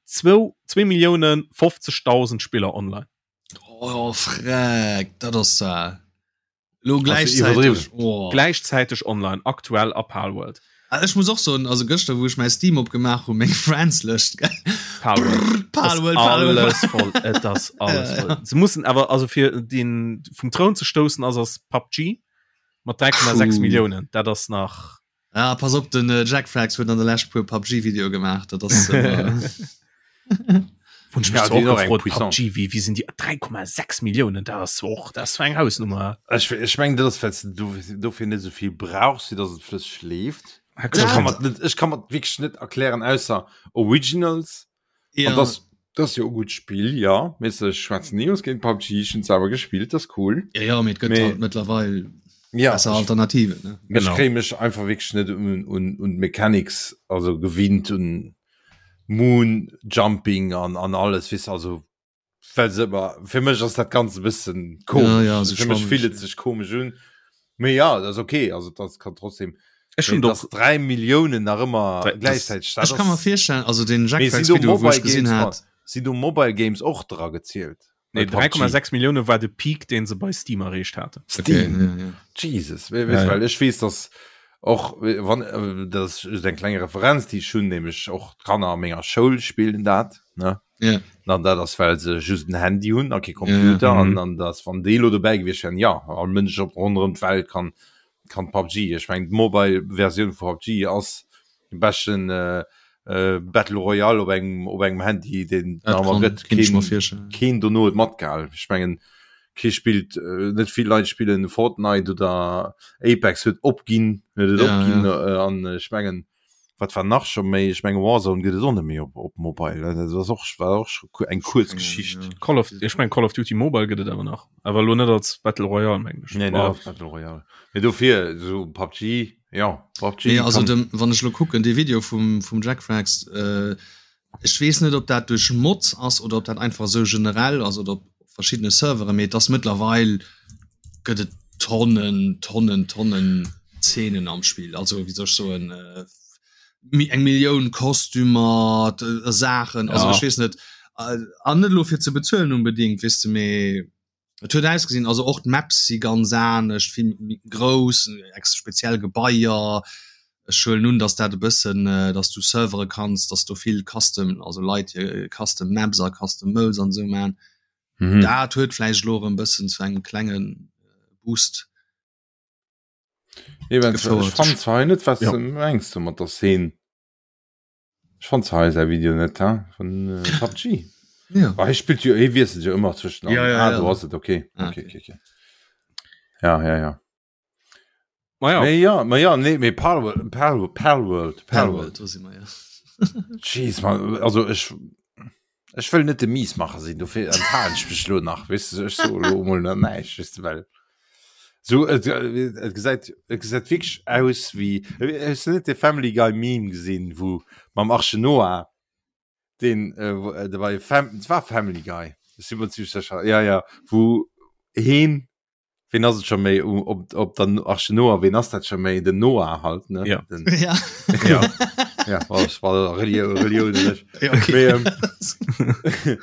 zwou 2 Millioune 50.000 Spiller online. Oh, freck, dat ass zwar. Lo gläichzäiteg oh. Gläichzäiteg online aktuell a Palworld. Ah, ech muss och soen, also gëschter wou ech mäi Steam opgemaach hu meng Friends-Lëscht Palworld. Palworld, Palworld. Alles voll et ass alles Ja, ja. voll. Se mussen awer also fir den vum Troun ze stoussen ass ass PUBG mat 3,6 Puh. Milliounen. Dat ass nach Ah, pass op den äh, Jack Frags huet an der lescht puer PUBG-Video gemaach dat ass äh, Wun ech Ja, mech déi och och eng gefrot, Puissance. PUBG, wie, wie sinn déi 3,6 Milliounen dat ass och dat ass eng Hausnummer. Ech, ech meng dat ass well s du dofir net esou vill brauchs, fir datt et flësseg leeft. Ech kann dat, mer net, ech kann mer wierklech net erklären ausser Originals. ja, An das, das jo gutt Spill, ja. Mee ech schwätzen ni aus géint PUBG, ech hunn selwer gespillt, das cool. ja, ja, mee et gëtt Mee- halt mëttlerweil Ja, besser ech, Alternativen ne? ech Genau. kréie mech einfach wierklech net un, un, un d'Mechanics, also gewinnt un Moon Jumping an, an alles, weess also well se ëmmer, fir mech ass dat Ganzt e bëssen komesch. Ja, ja, so fir mech schwammeg, fillt et ja. sech komesch un. Mee ja, dat ass okay, also dat kann trotzdem Ech hunn Mee doch dass 3 Milliounen nach ëmmer Drei- das- gläichzäiteg, dat Ech kann mer ass virstellen, also den Jack Mee sinn Frags do Video wou Mobile ech gesinn Games hat, sinn do Mobile Games och dra gezielt? Nee, Bei PUBG? 3,6 Millioune war de Peak, deen se bei Steam erreecht haten. Steam. Okay, ja, ja. Jesus, we, wees, Ja, ja. well ech weess, dass och wann äh, dat ass just eng kleng Referenz, déi ech hunn, nämlech och d'Kanner a menger Schoul spillen dat, ne? Ja. An dat ass well se just en Handy hunn a kee Computer Ja. an Mhm. an dass wann déi elo dobäi gewiescht wären, ja, all Mënsch op ronderëm d'Welt kann kann PUBG. Ech mengen d'Mobile Versioun vu PUBG ass. De beschten äh, äh, Battle Royale op engem op engem Handy den gëtt keen dono et matgehal. Ech mengen kee spillt äh, net vill Leit spillen Fortnite oder Apex huet opginn huet et ja, opginn ja. Äh, an ech mengen wat war nach scho méi ech menge Warzone gëtt et och net méi op op Mobile dat ass och war och scho eng kuerz Geschicht. Ja. Call of ech meng Call of Duty Mobile gëtt et awer nach awer lo net als Battle Royale meng ech. Nee, net als Battle Royale. Mee dofir so PUBG ja PUBG. Nee, also dem, wann ech lo kucken dee Video vum vum Jackfrags äh, ech weess net ob dat duerch Mods ass oder ob dat einfach esou generell ass oder op verschiddene Servere mee et ass mëttlerweil gëtt et Tonnen Tonnen Tonnen Zeenen am Spill also wéi soll ech soen äh, eng Millioun Kostümer Saachen also ja. ech weess net äh, an net lo fir ze bezuelen unbedingt weess de mee Et huet ausgesinn, also och d'Maps si ganz anescht, vill méi grouss, ex speziell Gebaier. Ech huelen un, datt dat e bëssen, datt du Servere kanns, datt do vill Custom, also Leit hir Custom Maps a Custom Modes an esou man. Mhm. Dat huet vläicht elo erëm bëssen zu engem klenge Boost gefouert. Ech fannen zwar hei net, wat s de mengs do mat der Szene. Ech fand zwar hei säi Video net he vun äh, PUBG. Ja. Ah, hie spillt jo, hie wiesselt jo ëmmer zwëschen Ja, ja, ah, ja. do ass et okay. Ah, Okay, okay, okay. Ja, ja, ja. Ma ja. Mee ja, ma ja, nee, mee Palworld, Palworld, Palworld, Palworld. Palworld, do si mer, ja. Jeez, man, also ech ech wëll net de Miesmacher sinn, dofir enthalen ech mech lo nach, weess du, ech so lo mol nach näischt, weess du, well so et, et gesäit et gesäit wierklech aus wéi, hues du net de Family Guy Meme gesinn, wou mam Arche Noah, deen äh, wou äh, bei Fam et war Family Guy, ech si mer zimmlech sécher, ja ja, wou heen Ween ass et scho méi op, op der Arche Noah, ween ass dat scho méi? Den Noah halt, ne? Ja. Den, ja. ja. ja, oh, das war Relioun, Relioun nicht. Ja, okay. Mee, ähm,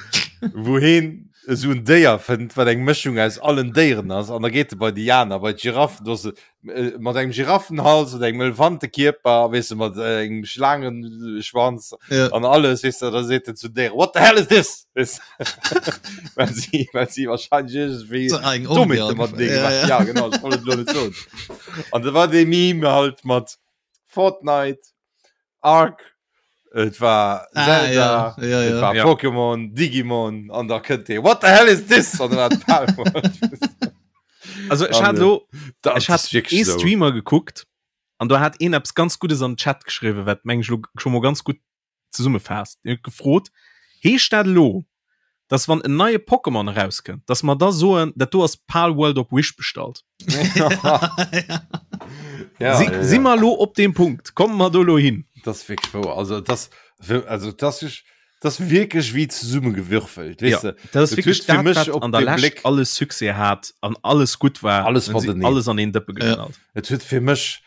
wou heen esou en Déier fënnt, wat eng Mëschung aus allen Déieren ass, an da geet e bei déi aner, bei d'Giraffen, do ass e äh, mat engem Giraffenhals oder engem Elefantekierper, weess de, mat äh, engem Schlaangenschwanz ja. an alles, weess de, da seet en zu Déier, what the hell is this? Weess well si, well si wahrscheinlich irgendwie So eng Dommheete Orgie mat dee ja, gemacht. ja. Ja, genau, ich wollt et lo net soen. An da war dee Meme halt mat Fortnite, Ark, et war Ah, Zelda, ja, ja, et ja. war Ja. Pokémon, Digimon, an da kënnt dee, what the hell is this? An da war d'Palworld. Also ech An, hat äh, lo Dat ech hat ass wirklich ee so. Streamer gekuckt an do hat een eppes ganz Guddes an den Chat geschriwwen, wat meng ech lo scho mol ganz gutt zesummefaasst. Deen huet gefrot, Heescht dat elo, dass wann en neie Pokémon erauskënnt, dass mer da soen, dat do ass Palworld op Wish bestallt? Ja, Si, ja, ja. si mer elo op deem Punkt? Komme mer do elo hin? Das ist wirklich wahr. Also das, also das ist, das ist wirklich wie zusammengewürfelt, weißt Ja, du? dat ass Dat wierklech huet fir dat, mech wat op an der de Lescht Bléck- alles Succès hat an alles gutt war. Alles Dann si mateneen. alles an een Dëppe geknallt. Et huet fir mech,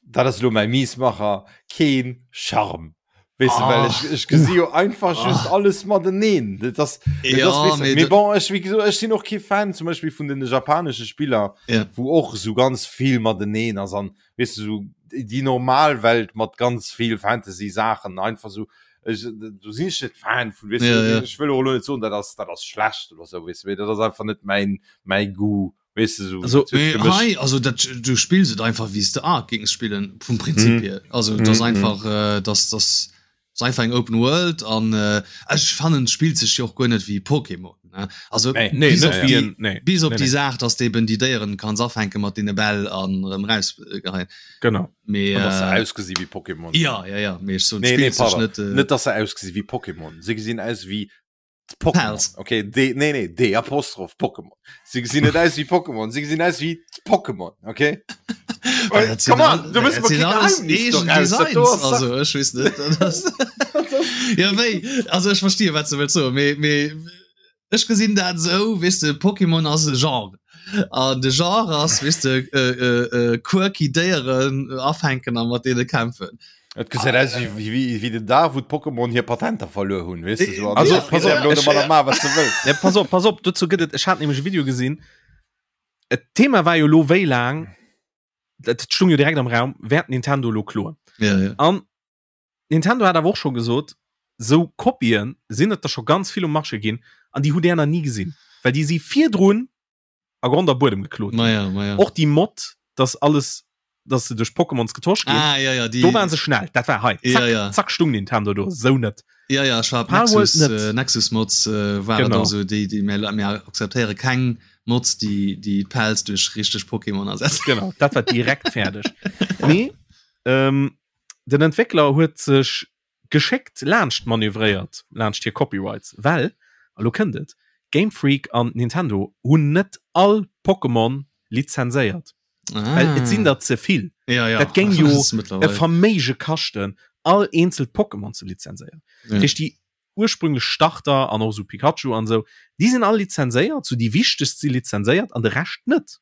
dat ass elo mäi Miesmacher, keen Charme. Weess de, well Ah. ech, ech gesi jo einfach just alles mateneen. Dat ass, dat Ja, ass, weess de, mee mee dat- bon, ech, wéi gesot, ech sinn och kee Fan zum Beispill vun den japanesche Spiller, Ja. wou och esou ganz vill mateneen ass an, weess de, esou déi normal Welt mat ganz vill Fantasy-Saachen einfach esou, ech, do sinn ech net Fan vun, weess de, Ja, ja. ech wëll och elo net soen, dat ass, dat ass schlecht oder esou, weess de, mee dat ass einfach net mäin, mäi Goût. Weess de, sou, Also, dat huet Mee fir mech- hei, also dat, du spills et einfach wéi s de Ark géings spillen, vum Prinzip Mhm. hier. Also et ass Mhm, einfach, äh, dass dass ass einfach eng Open World an äh, ech fannen et spillt sech jo och guer net wéi Pokémon, ne? Also Nee. Nee, bis net op wéi déi, en, nee. bis op Nee, déi nee. Saach, dass de eben déi Déieren kanns afänke mat deene Bäll an erëm rausgeheien. Genau. Mee An dass se äh, ausgesi wéi Pokémon. ja, ja, ja, mee ech soen, et Nee, nee, spillt sech pardon. net, äh, Net, dass se ausgesi wéi Pokémon. Se gesinn aus wéi Pokémon. Pals. Okay, D, nee, nee, D Apostroph Pokémon. Se gesinn net aus wéi Pokémon, se gesinn aus wéi d'Pokémon, okay? Well dat sinn Come on, all- du muss dat mer sinn kee alles Geheimnis eegen doraus, dat do Designs, ass also ech weess net, dat ass ja wéi also ech verstehe wat du wëlls soen, mee mee ech gesinn dat esou, weess de, Pokémon ass e Genre an de Genre ass, weess de, äh, äh, äh, quirky Déieren afänken a mat deene kämpfen. Et gesäit aus wéi, wéi, wéi, wéi den Dag, wou d'Pokémon hir Patenter verluer hunn, weess de, sou. An Also, ja, pass op, elo ech- mat ma wat se wëll. Ja, pass op, pass op, dozou gëtt et, ech hat nämlech e Video gesinn. Et Thema war jo lo wéi laang, dat stung jo direkt am Raum, wäert Nintendo lo kloen. Ja, ja. An Nintendo hat awer och scho gesot, sou Kopien sinn et der scho ganz vill um Marché ginn an déi hutt där nach ni gesinn, well déi si virdrun a Grond a Buedem geklot ginn. Maja, maja. Och déi Mod, dass alles. Dass se duerch Pokémons getosch ginn. Ah, ja, ja, die, do waren se schnell. Dat war hei. Zack, ja, ja. zack stung Nintendo do. Sou net. Ja, ja, ech war Nexus, äh, Nexus Mods äh, war genau. so déi, déi mir, mir akzeptéiere keng Mods, déi déi Pals duerch richteg Pokémon ersetzen. Genau, dat war direkt fäerdeg. Mee ähm, den Entwéckler huet sech geschéckt laanscht manövréiert, laanscht hir Copyrights, well, a lo kënnt et, Game Freak an Nintendo hunn net all Pokémon lizenséiert. Ah. Well et sinn der ze vill. Ja, ja. Dat géing jo e Verméige kaschten, all eenzelt Pokémon ze lizenséieren. Ja. Dat heescht, déi ursprünglech Starter an och esou Pikachu an esou, déi sinn all lizenséiert, sou déi wichtegst si lizenséiert an de Rescht net.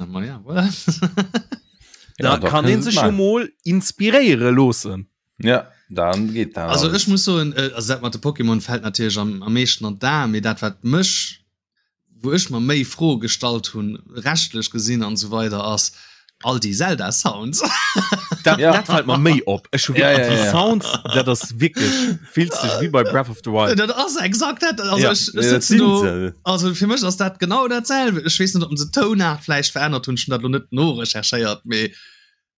Ma ja, voilà. Da Ja, da kann kënnt een et sech jo maachen. mol inspiréiere loossen. Ja, dann geet dat Also alles. ech muss soen, äh, also dat mat de Pokémon fält natierlech am, am meeschten an d'Aen, mee dat wat mech, wou ech mer méi Froe gestallt hunn, rechtlech gesinn an esou weider, ass all déi Zelda Sounds. Dat, Ja. dat fällt mer méi op. Ech hu Ja, wirklich, ja, die ja. Sounds, dat ass wirklich, fills dech wéi bei Breath of the Wild. Dat ass exakt dat. Also Ja. ech, ech Ja, dat sitzen sinn do, se. also fir mech ass dat genau dat selwe. Ech weess net, ob se d'Tounart vläicht verännert hunn, ech hunn dat lo net norecherchéiert, mee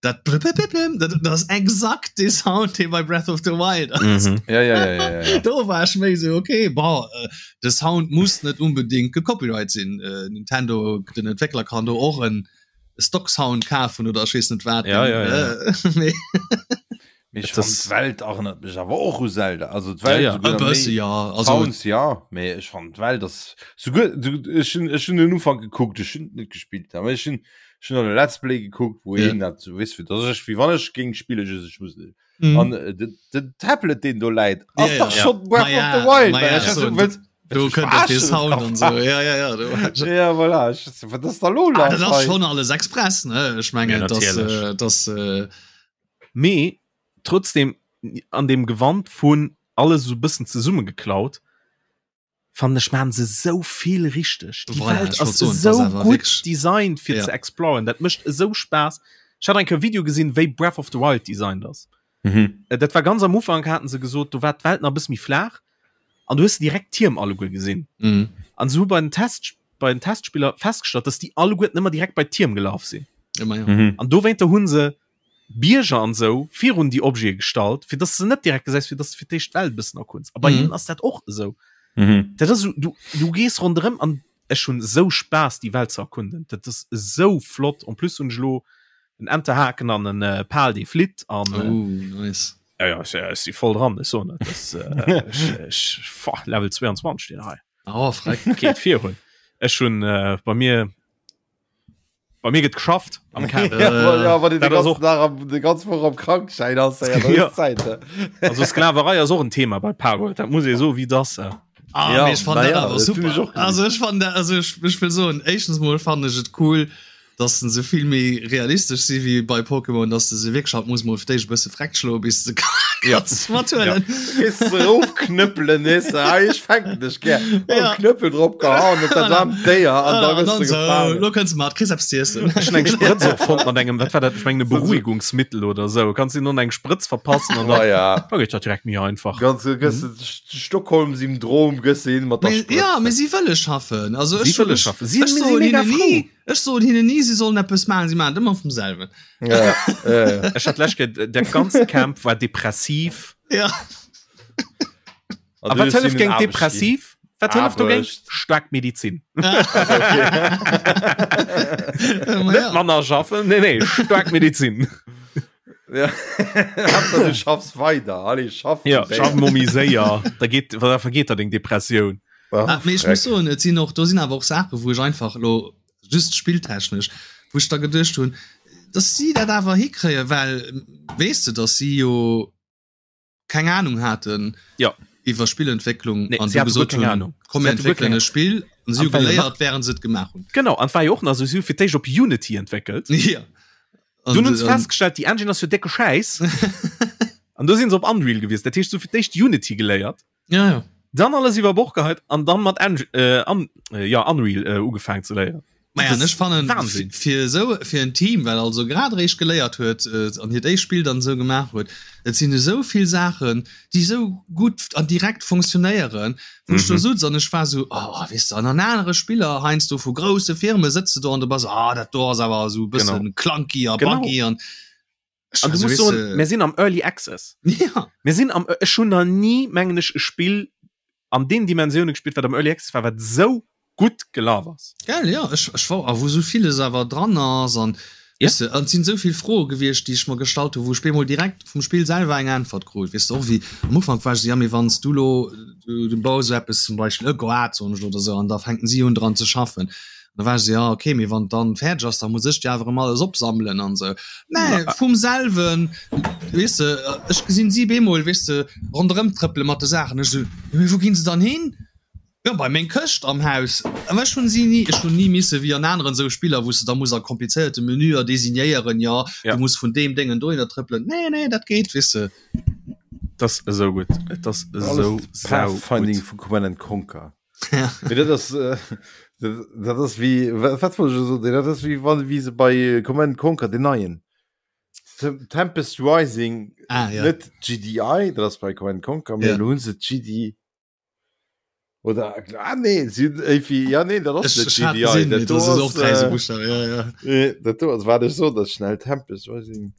dat blibblibbliblim, dat, dat ass exakt dee Sound, dee bei Breath of the Wild ass. Mhm. Ja, ja, ja, ja, ja, ja. Do war ech méi sou, okay, bon, äh, de Sound muss net unbedingt gecopyright sinn. Äh, Nintendo, den Entwéckler kann do och en Stock Sound kafen oder ech weess net wat. Ja, ja, ja. Äh, mee Mee ech Et ass- fand d'Welt erënnert mech awer och u Zelda. Also d'Welt Ja, ja. e souguer bësse méi ja, also Sounds ja, mee ech fand d'Welt ass souguer du ech hunn ech hunn den Ufank gekuckt, ech hunn net gespillt, awer ech hunn ech hunn an e Let's Play gekuckt, wou Ja. een dat so weess, fir dass ech wéi wann ech géing spillen, just ech muss net. mhm. An äh, den, den Tablet deen do läit, ass Ja, ja. dach Ja. schon Breath Ma ja, of the Wild. ma man. ja, Ech so, so, wëlls- do wëlls du kënnt och dee verarschen? Sound an sou. Ja, ja, ja, do. Ja, voilà. Ech, wat ass da lo Ah, dat lass ass hei? schon alles express, ne? Ech mengen, Ja, dass, natierlech. äh, dass äh, Mee trotzdem an dem Gewand vun alles esou bëssen zesummegeklaut, fannen ech maachen se esou vill richteg. Déi Voilà, Welt ech wollt ass soen, et ass esou awer gutt wierklech- designt fir Ja. ze exploren. Dat mécht esou Spaass. Ech hat eng Kéier e Video gesinn, wéi Breath of the Wild designt ass. Mhm. Äh, Dat war ganz am Ufank, haten se gesot, do war d'Welt nach e bësse méi flaach an du hues direkt d'Tierm alleguer gesinn. mhm. An se hu bei den Test bei den Testspiller festgestallt, dass déi alleguerten ëmmer direkt bei d'Tierm gelaf sinn. Ëmmer, ja. Mhm. An dowéinter hunn se Bierger an sou virun déi Objete gestallt, fir dass de net direkt gesäis, fir dass de fir d'éischt d'Welt e bëssen erkunds. A bei Mhm. hinnen ass dat och esou. Mhm. Dat ass esou, du, du gees ronderëm an ech hunn esou Spaass déi Welt ze erkunden. Dat ass esou flott. En plus hunn ech elo en Enterhaken an en äh, Pal dee flitt an äh, Oh, nice. ja, ja, ech, ech si voll dran, ech soen et. Das, äh, ech, ech, fa, Level 22 deen hei. Oh, freck. Geet virun. Ech hunn äh, bei mir Bei mir gëtt geschafft am Camp. Ja, wa- ja, wann du Dat den ass ganzen och- Dag am, de ganz Woch am Krankschein ass, ja, dann Ja. ist Zeit. ne? Also Sklaverei ass och en Thema bei Palworld, dat muss ee soen, wéi dass. Äh. Ah, Ja, mee ech fand na dat ja, awer dat hunn ech super. och gesinn. Also ech fand dat, also ech, ech will soen, éischtens mol fand ech et cool, dass se vill méi realistesch si wéi bei Pokémon, dass de se wierklech halt muss mol fir d'éischt e bësse freck schloe bis de Ja. kanns mathuelen. Gehst du raufknüppeln, weißt du, ah, ich fänk dich gern. Oh, Ja. Knüppel drauf gehauen und dann am Déier an da An bist dann du so, gefangen. lo kënns du mat, kriss eppes z'iessen. Ech hunn eng Sprëtz och fonnt mat engem, wat war dat, ech mengen e Beruhigungsmittel oder sou. Kanns du hinnen eng Sprëtz verpassen an Ah, dann ja. da geet dat direkt méi einfach. Ganz, gëss du Stockholm-Syndrom gëss du hin mat der Mee, Sprëtz. ja, mee si wëlle schaffen. Also Si ech, wëlle ech, schaffen. Si ech si soen mega hinnen frou. ni, ech soen hinnen ni, si sollen eppes maachen, si maachen et ëmmer vum selwen. Ja, ja, ja. Ech hat lech der ganze Camp war depressiv. Ja. A wat hëlleft géint depressiv? Wat hëlleft dogéint? Aarbecht. Staark Medizin. Ma Net ja. manner schaffen, nee, nee, staark Medizin. Ja. Haaptsaach du schaffs weider. Allez, schaff. Ja, schaff mol méi séier, da geet, da vergeet der deng Depressioun. Ah, mee ech muss soen, et sinn och, do sinn awer och Saachen, wou ech einfach elo just spilltechnesch, wou ech da geduecht hunn, dass si dat awer hikréien, well weess de, dass si jo keng Ahnung haten Ja. iwwer Spillentwécklung Nee, an si du hate guer gesot keng hunn, Ahnung. komm Si mir hate guer entwéckelen keng e Spill an si hu An war jo nach- geléiert, während se et gemaach hunn. Genau, an war jo och nach esou, si hu fir d'éischt op Unity entwéckelt. Ja. An, Dunn hunn se an, festgestallt, déi Engine ass jo décke Schäiss. An du sinn se op Unreal gewiesselt. Dat heescht, se hu fir d'éischt Unity geléiert. Ja, ja. Dann alles iwwer Bord geheit an dann mat Eng äh, an, äh, ja, Unreal äh, ugefaangen ze léieren. Maja, ech fannen Wahnsinn. fir esou fir en Team, wat also grad eréischt geléiert huet äh, an hiert éischt Spill dann esou gemaach huet, et sinn esou vill Saachen, déi esou gutt an direkt funktionéieren, wou ech do Mhm. sutz an ech war esou, oh, weess de, an an anere Spiller heiansdo vu grousse Firme sëtz de do an du bass, ah, dat do ass awer esou e Genau. bëssen clunky a Genau. buggy an ech An war du esou, musst weess soen, de, mir sinn am Early Access. ja. Mir sinn am, ech hunn nach ni, mengen ech, e Spill an den Dimensioune gespillt, wat am Early Access war, wat esou gutt gelaf ass. Gell, ja, ech, ech war, a wou esou villes awer dran ass an, Ja. weess de, an et sinn esou vill Froe gewiescht, déi ech mer gestallt hunn, wou ech bemol direkt vum Spill selwer eng Äntwert krut, weess de, och wéi am Ufank war ech esou, ja, mee wann s du elo, du, du baus esou eppes, zum Beispill e Goart, soen ech elo, oder esou, an da fänken si un dran ze schaffen. An da war ech esou, ja, okay, mee wann et dann fäerdeg ass, da muss ech déi awer erëm alles opsammelen an esou. Mä vum selwen, weess de, ech gesinn si bemol, weess de, ronderëm trëppele mat de Saachen, ech esou, jo, mee wou ginn se dann hin? Jo, bei meng Këscht am Haus. Awer ech hunn si ni, ech hunn ni misse wéi an aneren esou Spiller, wou s de da muss a komplizéierte Menüer designéieren, jo, Ja. du muss vun deem Déngen dohinner trëppelen. Nee, nee, dat geet, weess de. Et ass esou gutt. Et ass esou Alles Pathfinding saugutt. vu Command and Conquer. Ja. Mee dat ass, äh, dat, dat ass wéi, wat, wat wollt ech elo soen? Dat ass wéi wann, wéi se bei äh, Command and Conquer, den neien, Tempest Rising, Ah, ja. net GDI, dat ass bei Command and Conquer, mee Ja. elo hunn se GD, Oder ah, nee, sie, irgendwie, ja nee, dat ass Ech, net ech hat GDI, gesinn, dat mee do do ass och ass, dräi sou äh, Buchstaben, ja, ja. äh, dat do ass, wat ech sot, dat schnell Tempest Rising.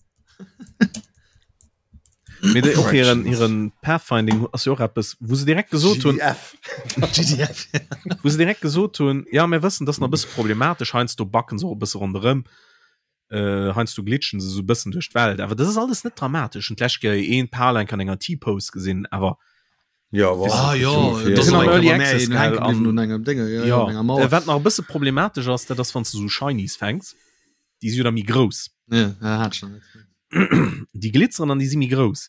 Mee déi och hiren, Corrections. hiren Pathfinding ass jo och eppes, wou se direkt gesot hunn, GDF. GDF, ja. wou se direkt gesot hunn, ja mir wëssen, dat ass nach e bësse problematesch, heiansdo backen se och e bësse ronderëm, äh, heiansdo glitschen se sou e bëssen duerch d'Welt, awer dat ass alles net dramatesch. Hunn d'lescht Kéier een Pal enk an enger T-Pose gesinn, awer Ja, war Ah, jo, ungefähr. dat ass Sinn am och Early eng Kéier bei mär Access, een hänke gell, bliwwen an un engem Dénge, ja, ja, ja, un enger Mauer. äh, wat nach e bësse problematesch ass, dat ass wann s du sou Shinies fänks, déi si jo da méi grouss. Ja, ja, hat ech nach net. Déi glitzeren an déi si méi grouss.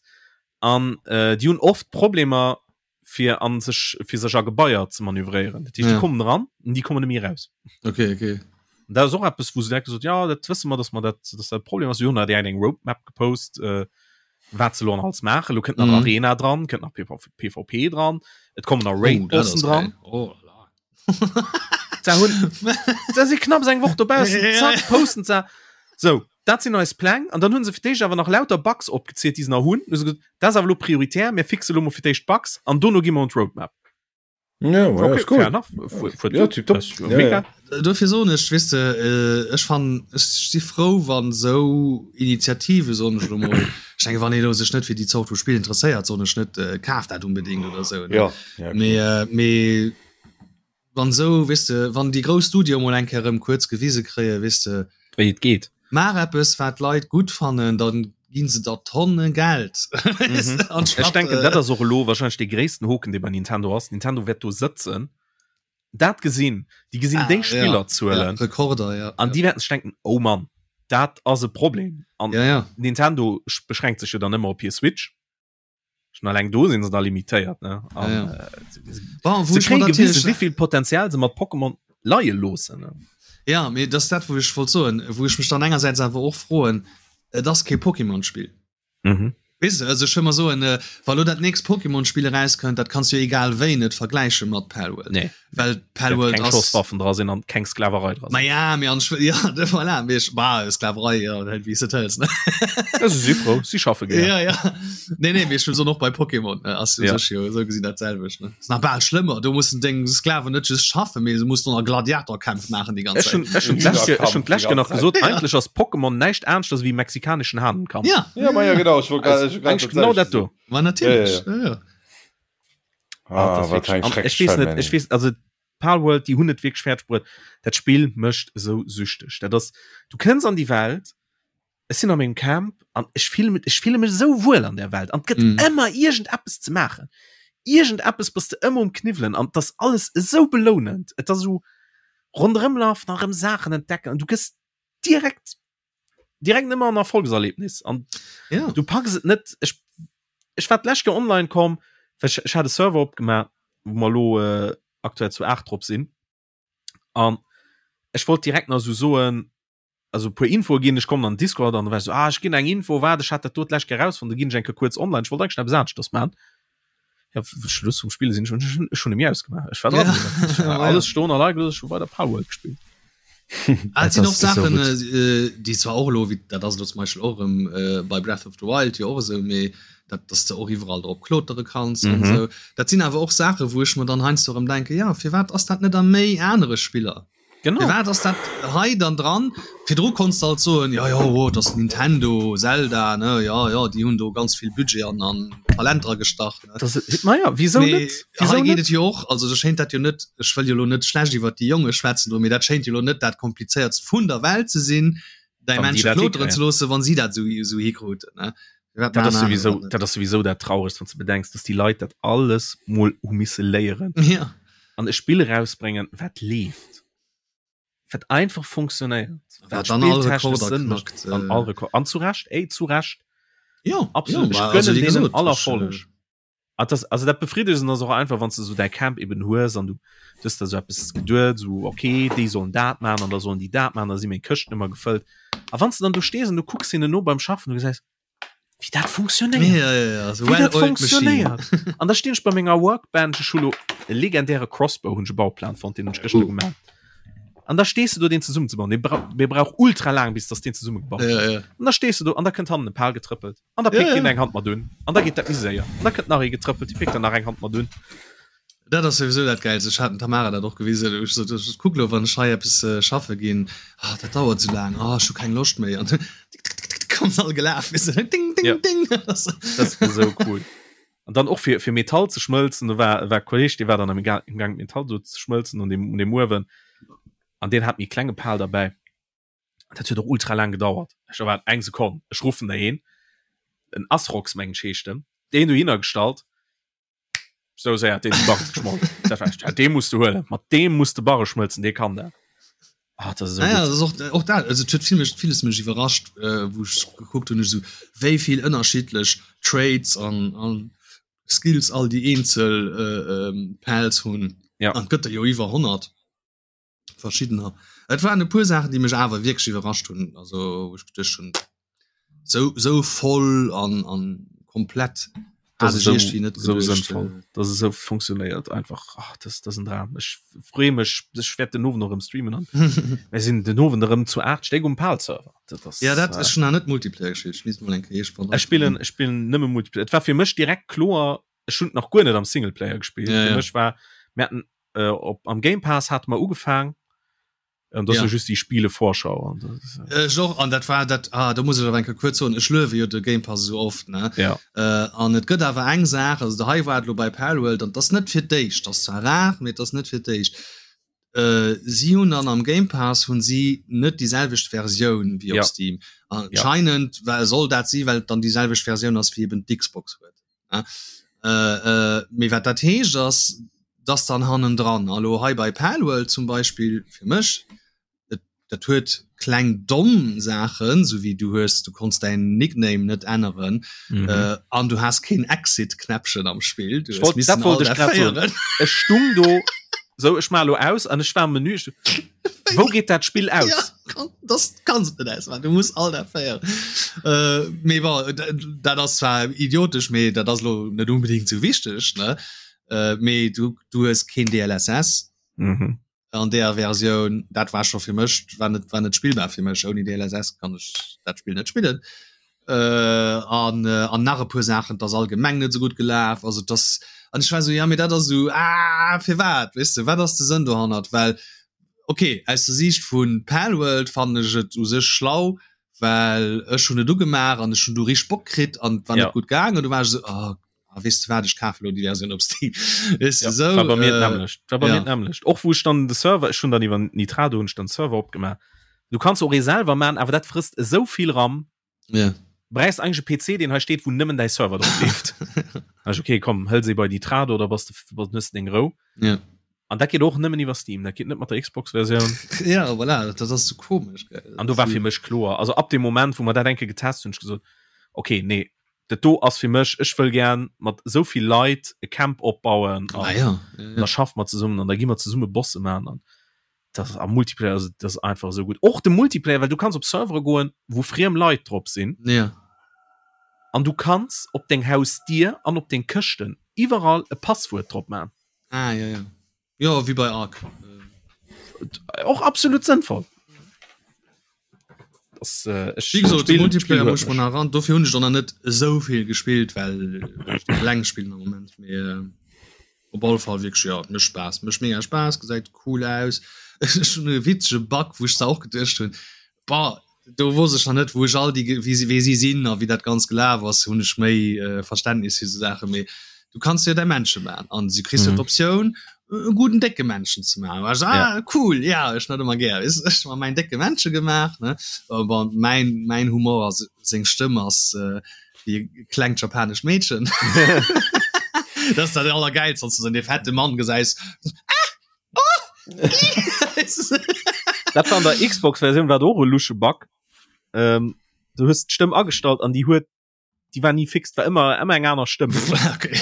An äh, déi hunn oft Problemer fir an sech fir sech a Gebaier ze manövréieren. Dat heescht, déi Ja. kommen eran an déi kommen net méi eraus. Okay, okay. An dat ass och eppes, wou se direkt gesot, ja, dat wësse mer, dass mer dat, dass dat e Problem ass. Si hunn da direkt eng Roadmap gepost, äh, wat se lo an alles maachen. Lo kënnt nach Mhm. Arena dran, kënnt nach PV PvP dran, et kommen nach Oh, dat Raid-Bossen ass dran. geil. Oh la la. Da hunn da si knapps eng Woch dobaussen, Ja. zack, posten se. So, dat sinn eis Pläng. An dann hunn se fir d'éischt awer nach lauter Bugs opgezielt, déi se nach hunn. Hu se gesot, dat ass awer lo prioritär, mir fixe lo mol fir d'éischt d'Bugs an dono gi mer un d'Roadmap. Ja, ja, Okay, ist gut. fair enough. Fu- fu- Ja, tipptopp. Das ist Ja, mega. ja. Dofir soen ech, weess de, äh, ech fannen, ech si frou, wann esou Initiative, soen ech elo mol, ech denke wann ee elo sech net fir déi Zort vu Spill interesséiert, soen ech net, äh, kaf dat unbedéngt oder esou, ne? Ja, ja, klar. Mee, äh, mee wann esou, weess de, wann déi grouss Studioe mol eng Kéier erëm kuerz gewise kréien, weess de, Wéi et geet. Maach eppes wat d'Leit gutt fannen, dann ginn se der Tonne Geld. Mhm. Ech denken dat ass och elo wahrscheinlech dee gréissten Hoken dee bei Nintendo ass. Nintendo wäert do sëtzen, dat gesinn, déi gesinn ah, déi ja, Spillerzuelen ja, Rekorder ja, an ja. déi wäerten sech denken, oh Mann, dat ass e Problem. An ja, ja. Nintendo beschränkt sech jo dann ëmmer op hir Switch. Schon alleng do sinn se da limitéiert ne an, ja, ja. äh, Bon, se kréie gewisen wéivill Potenzial se mat Pokémon leie loossen ne. Ja, mee dat ass dat wou ech wollt soen, wou ech mech dann engersäits awer och froen, et ass kee Pokémon-Spill. Mhm. Weess de, also ech wëll mer soen, äh, wa lo dat nächst Pokémon-Spill erauskënnt, dat kanns du jo egal wéi net vergläiche mat Palworld. Nee. Well Palworld keng ass. Schosswaffen dra sinn an keng Sklaverei dra sinn. Ma ja, mee an ech, ja, de voilà, mee ech, bah, Sklaverei, ja, wéi s de et hëls, ne? Ja, se si frou, si schaffe gär. Ja, ja. Nee, nee, mee ech wëll soen, och bei Pokémon äh, ass jo Ja. sech jo esou gesinn dat selwecht, ne? Ass nach bal schlëmmer, do mussen deng Sklaven net just schaffen, mee se mussen och nach Gladiatorkämpf maachen déi ganz Ech hunn Zäit. ech hunn d'lescht Joer- ech hunn d'lescht Joer nach gesot, Ja. eigentlech ass Pokémon näischt aneschters ewéi mexikaneschen Hahnenkampf. Ja, Ja, ma ja, genau, ech wollt grad- ech wollt grad Eigentlich genau dat dat do. ma natierlech. Ja, Ja, ja. Ah, Ah, das wat wirklich, eng an schrecklech ech weess net, Vermennung. ech weess, also Palworld, déi hunn et wierklech fäerdeg bruet. Dat Spill mécht esou süchteg. Dat ass, du kënns an déi Welt, ech sinn a mengem Camp an ech fille mech, ech fille mech esou wuel an där Welt an et gëtt Mm. ëmmer iergendeppes ze maachen. Iergendeppes bass de ëmmer um Kniwwelen an et ass alles esou belounend. Et ass esou ronderëmlafen a rëm Saachen entdecken an du gëss direkt direkt ëmmer en Erfolgserlebnis an Ja. du packs et net. Ech, ech war d'lescht Kéier online komm, well ech, ech hat e Server opgemaach, wou mer elo äh, aktuell zu 8 drop sinn an ech wollt direkt nach esou soen, also e puer Infoe ginn, ech kommen an den Discord an da war ech so, ah, ech ginn eng Info, waart, ech hat dat do d'lescht Kéier rausfonnt, da ginn ech eng Kéier kuerz online, ech wollt eigentlech eppes aneschters maachen. Ja, Schluss vum Spille sinn ech, ech hunn e mir ausgemaach, ech war dran, Ja. ech war Ja. alles stoen a leie gelooss, ech hu weider Palworld gespillt. Ah, et sinn och Saachen, déi zwar och elo, wéi dat ass elo zum Beispill och erëm bei Breath of the Wild jo och esou, mee dat, dass de och iwwerall drop klotere kanns an esou. Dat sinn awer och Saachen, wou ech mer dann heiansdo erëm denken, jo, firwat ass dat net a méi anere Spiller? Genau. Firwat ass dat hei dann dran? Virdru konns de alt soen, jo, jo, oh, dat ass Nintendo, Zelda, ne, jo, jo, déi hunn do ganz vill Budget an, an Talent dra gestach, ne. Das, naja, wieso Mee net? Wieso hei geet net? et jo och, also do schéint dat jo net, ech wëll jo elo net schlecht iwwert déi Jonge schwätzen do, mee dat schéint jo elo net dat komplizéiertst vun der Welt ze sinn, däi Wann déi Männche dat kloteren hikréien. ze loossen, wann si dat esou, esou hikruten, ne. Firwat Dat maachen ass aner souwisou, dat net? dat ass souwisou dat Trauregt, wann s de bedenks, dass déi Leit dat alles mol hu misse léieren Ja. an e Spill erausbréngen, wat leeft, wat einfach funktionéiert, Wat wat dann all spilltechnesch Rekorder Sënn mécht knackt, an äh. all Rekord. An zu Recht, ey, zu Recht. Ja, Absolut. ja, Ech ma also gönnen wéi deenen gesot, all ech, Erfolleg. äh, Ah, das, also dat Befriedegend ass och einfach, wann du so däi Camp eben hues an du hues der so eppes geduet, so okay, déi sollen dat maachen an da sollen déi dat maachen, da si meng Këschten ëmmer gefëllt. A wann s du dann do stees an du kucks hinnen no beim Schaffen, du gesäis, wéi dat funktionéiert. Ja, ja, ja, so Wéi dat well-oiled machine. funktionéiert. An da stinn ech bei menger Workbench, ech hu lo e legendäre Crossbow, hunn ech e Bauplan fonnt, deen hunn ech gëschter Uh. gemaach. An da stees du do, deen zesummenzebauen. Dee brauch, dee brauch ultra laang, bis dass deen zesummegebaut Ja, ass. ja. An da stees du do an da kënnt hannen e Pal getrëppelt. An da Ja, pickt ja. deen eng Hand mat un. An da geet dat méi séier. An da kënnt nach ee getrëppelt, dee pickt dann nach eng Hand mat un. Dat ass souwisou dat Gäilst. Ech hat dem Tamara dat och gewisen. Ech sot, ech kuck lo, wann ech hei eppes schaffe ginn, ah, dat dauert esou laang, ah, ech hu keng Loscht méi. An tick, tick, tick, tick, kommen se all gelaf, weess de, ding, ding, Ja. ding. Dat ass esou cool. An dann och fir, fir Metall ze schmëlzen, do war, war e Kolleg, dee war dann am Ga-, am Gaang Metall do ze schmëlzen un deem, un deem Uewen. An deen hat méi klenge Pal derbäi. Dat huet och ultra laang gedauert. Ech war eng Sekonn, ech ruffen der een, en Asrox mengen ech heescht en, deen dohinner gestallt, sou séier hat deen de Barre geschmolt. Dat war echt, ja, dee muss du huelen, mat deem muss de Barre schmëlzen, dee kann dat. Ah, dat ass esou Naja, gutt. das och, och dat, also et huet vill mech, villes mech iwwerrascht, äh, wou ech gekuckt hunn, ech esou, wéi vill ënnerschiddlech Traits an, an Skills all déi eenzel äh, ähm, Pals hunn. Ja. An et gëtt der jo iwwer 100. verschiddener. Et waren e puer Saachen, déi mech awer wierklech iwwerrascht hunn, also wou ech geduecht hunn, sou sou voll an an komplett Das hat ist ech iergendwéi net so geduecht. sënnvoll, dass es sou funktionéiert einfach. Ach, das, das ist en Dram. Ech freeë mech, ech wäert den Owend och erëm streamen an mir sinn den Owend erëm zu 8 Stéck um PAL-Server. Dat ass, Ja dat äh, ech hunn nach net Multiplayer gespillt, ech misst mol eng Kéier ech spillen, ech spillen nëmme Multiplayer. Et war fir mech direkt kloer, ech hunn nach guer net am Singleplayer gespillt. Ja, Fir ja. mech war, mir haten äh, op, am Game Pass hate mer ugefaang, an das Ja. ja. just déi Spielevorschau an das ist, Äh, Ech och, an dat war dat ah, do muss ech awer eng Kéier kuerz soen, ech luewe jo de Game Pass esou oft, ne? ja. Äh, an et gëtt awer eng Saach, also do hei war et elo bei Palworld, an 't ass net fir d'éischt, 't ass zwar rar, mee et ass net fir d'éischt, äh, si hunn dann am Game Pass hunn si net déi selwecht Versioun wéi op Ja. Steam. Anscheinend well soll dat si well et dann déi selwecht Versioun ass wéi eben d'Xbox huet. Ne? Äh, äh, mee wat dat heescht ass, dass dann hannendran, a lo hei bei Palworld zum Beispill fir mech, et, dat huet kleng domm Saachen, sou wéi du hues, du konns däin Nickname net änneren, Mhm. äh, an du has keen Exit-Knäppchen am Spill, du Ech hues wollt, dat missen wollt all ech grad soen. féieren. Ech stung do, so ech maach lo aus an ech war am Menü, ech, wou geet dat Spill aus? Ja, kann, das kannst du net ausmachen, du muss all dat féieren. Äh, mee bon, dat ass zwar idiotesch, mee dat ass lo net unbedingt sou wichteg, ne? Äh, mee du, du hues keen DLSS Mhm. an der Versioun, dat war scho fir mech, war net, war net spillbar fir mech. Ouni DLSS kann ech dat Spill net spillen. Äh, an, äh, an nach e puer Saachen, 't ass allgemeng net sou gutt gelaf, also 't ass, an ech war sou, ja mee dat ass sou, ah firwat, weess de, wat ass de Sënn dohannert? Well okay, aus der Siicht vu Palworld fannen ech et u sech schlau, well ech hunn et ugemaach an ech hunn du richteg Bock kritt an et war Ja. net gutt gaangen, du war ech sou, ah, ah, weess de wat, ech kafe lo déi Versioun op Steam. Weess de, Ja, sou, war bei mir äh, d'nämmlecht. War bei ja. mir d'nämmlecht. Och wou ech dann de Server, ech hunn dann iwwer Nitrado hunn ech dann Server opgemaach. Du kanns och ee selwer man, awer dat frësst esou vill RAM. Ja. Bräichst eigentlech e PC, deen hei steet, wou nëmmen däi Server drop leeft. Ech, okay, komm, hël se bei Nitrado, da bass de, bass, hues de deng Rou. Ja. An dat geet och nëmmen iwwer Steam, dat geet net mat der Xbox-Versioun. Ja, voilà, dat ass sou komesch, gell. An do war fir mech kloer, also ab dem Moment, wou mer dat eng Kéier getest hunn, hunn ech gesot, okay, nee, dat do ass fir mech, ech wëll gär mat esou vill Leit e Camp opbauen an Ah, ja. Ja, ja. da schaffe mer zesummen an da gi mer zesumme Bosse maachen an dat ass am Multiplayer, also dat ass einfach esou gutt. Och de Multiplayer, well du kanns op Servere goen, wou friem Leit drop sinn. Ja. An du kanns op deng Hausdier an op deng Këschten iwwerall e Passwuert drop maachen. Ah, ja, ja. Jo, wéi bei Ark. Och absolut sënnvoll. Das, äh, ech, Wie gesot, de Multiplayer muss man ran. Dofir hunn ech dann net esou vill gespillt, well ech eleng spillen am Moment. Mee äh, op alle Fall wierklech ja, mécht Spaass, mécht mega Spaass, gesäit cool aus. Ech hunn e witzege Bug, wou ech zwar och geduecht hunn, Bah, do wosst ech nach net, wou ech all déi, wéi si, wéi si sinn a wéi dat Ganzt gelaf ass, hunn ech méi Verständnis fir esou Saachen. Mee du kanns jo däi Männche maachen an du kriss jo d'Optioun, e gudden décke Männchen ze maachen. War ech, ah, cool, ja, ech net ëmmer gär, weess, ech hu mer mäin décke Männche gemaach, ne. Bon, mäin, mäin Humor ass, seng Stëmm ass wéi e klengt japanescht Meedchen. Dat ass dat Allergäilst, wann s du esou dee fette Mann gesäis, ah! Dat war an der Xbox-Versioun war och e lusche Bug. Ähm, du hues d'Stëmm agestallt an déi huet déi war ni fix, war ëmmer ëmmer eng aner Stëmm. Okay.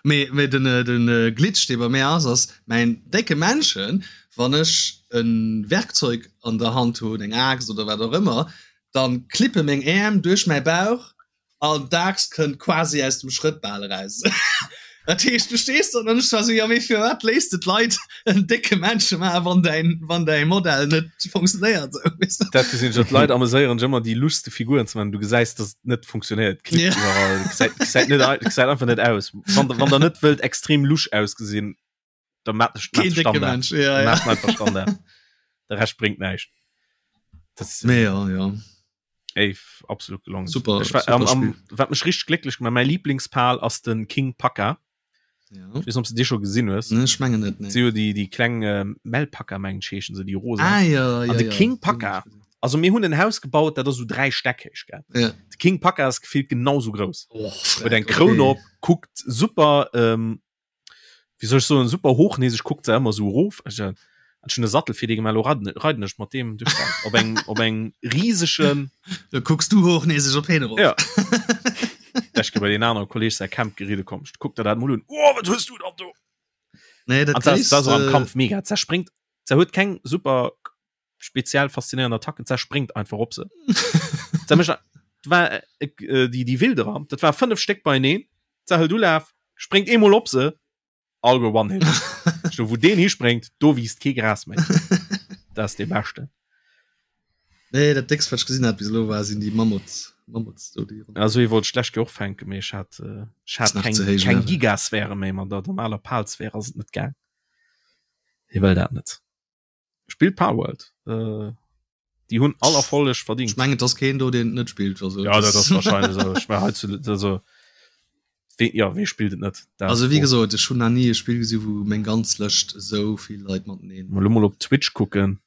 Mee, mee den, äh, den äh, Glitch, dee bei mir ass, ass mäin décke Männchen, wann ech e Werkzeug an der Hand hunn, eng Aaxt oder wat och ëmmer, dann klippe meng Äerm duerch mäi Bauch An d'Aaxt kënnt quasi aus dem Schrëtt bal eraus. Dat heescht, du stees do an ech war sou, jo mee firwat léisst de d'Leit en décke Männche maachen, wann däin, wann däi Modell net funktionéiert sou, weess de? Dat gesinn ech, d'Leit ameséieren sech ëmmer déi luschste Figuren ze maachen, du gesäis, dass et net funktionéiert, klippt Ja. iwwerall, gesäit, gesäit net, gesäit einfach net aus. Wann, wann der net wëllt extrem lusch ausgesinn, da maat de Keen décke Standard. Mensch, ja, ja. Maat einfach Standard. De Rescht bréngt näischt. Das, Mee ja, ja. Ey, absolut gelongen. Super, Ich war, super am, am, Spiel. wat mech richtig glécklech gemacht, mäi Lieblingspal ass den King Paka. Ja. Ich weess net, ob s du dee scho gesinn hues. Nee, ech mengen net, nee. Si jo déi, déi kleng äh, Melpaka, mengen ech, heeschen se, déi rosa. Ah, ja, ja, An de ja. King Paka, also mir hunn en Haus gebaut, dat ass sou 3 Stäck héich, gell. Ja. De King Paka ass gefillt genau sou grouss. Oh, Huet eng okay. Kroun op, kuckt super, ähm, wéi soll ech soen, super hochnäseg, kuckt se ëmmer sou erof. Ech hat schon e Sattel fir dee gemaach, elo reiden, reiden ech mat deem duerch d'Welt op engem, op engem risegen. Da kucks du hochnäseg op heen erof. Ja. Ech bei den anere Kolleg säi Camp geride komm. Kuck der dat mol un. Oh, wat hues du dann do? Nee, dat An dat ass am gréisste- Kampf mega. Zerspringt, se huet keng super speziell faszinéierend Attacken, zerspringt einfach op se. Se mécht, war äh, äh, déi, déi Wilderer, dat war fënnef Stéck beieneen. Se hëlt Ulaf, spréngt eemol op se, all go one hit. Do wou deen hispréngt, do wiisst kee Gras méi. Dat ass dee beschten. Nee, dat déckst wat ech gesinn hat bis elo war sinn déi Mammuts. Mammuts do déi. Also ee wollt schlecht och fänken, mee ech hat äh, ech hat Ass nach keng, ze héich keng Level. Gigasphäre méi, mat der normaler Palsphäre ass et net gaang. Hie wëll dat net. Spillt Palworld. Äh, déi hunn all Erfolleg verdingt. Ech mengen et ass keen do deen et net spillt. Also, Ja, dat ass wahrscheinlech esou. Ech mein, hei zu, also, wee, ja, wee spillt et net? Dat Also wéi gesot, ech hunn nach ni e Spill gesi wou meng ganz Lëscht esou vill Leit mateneen. Mal lo mol op Twitch kucken.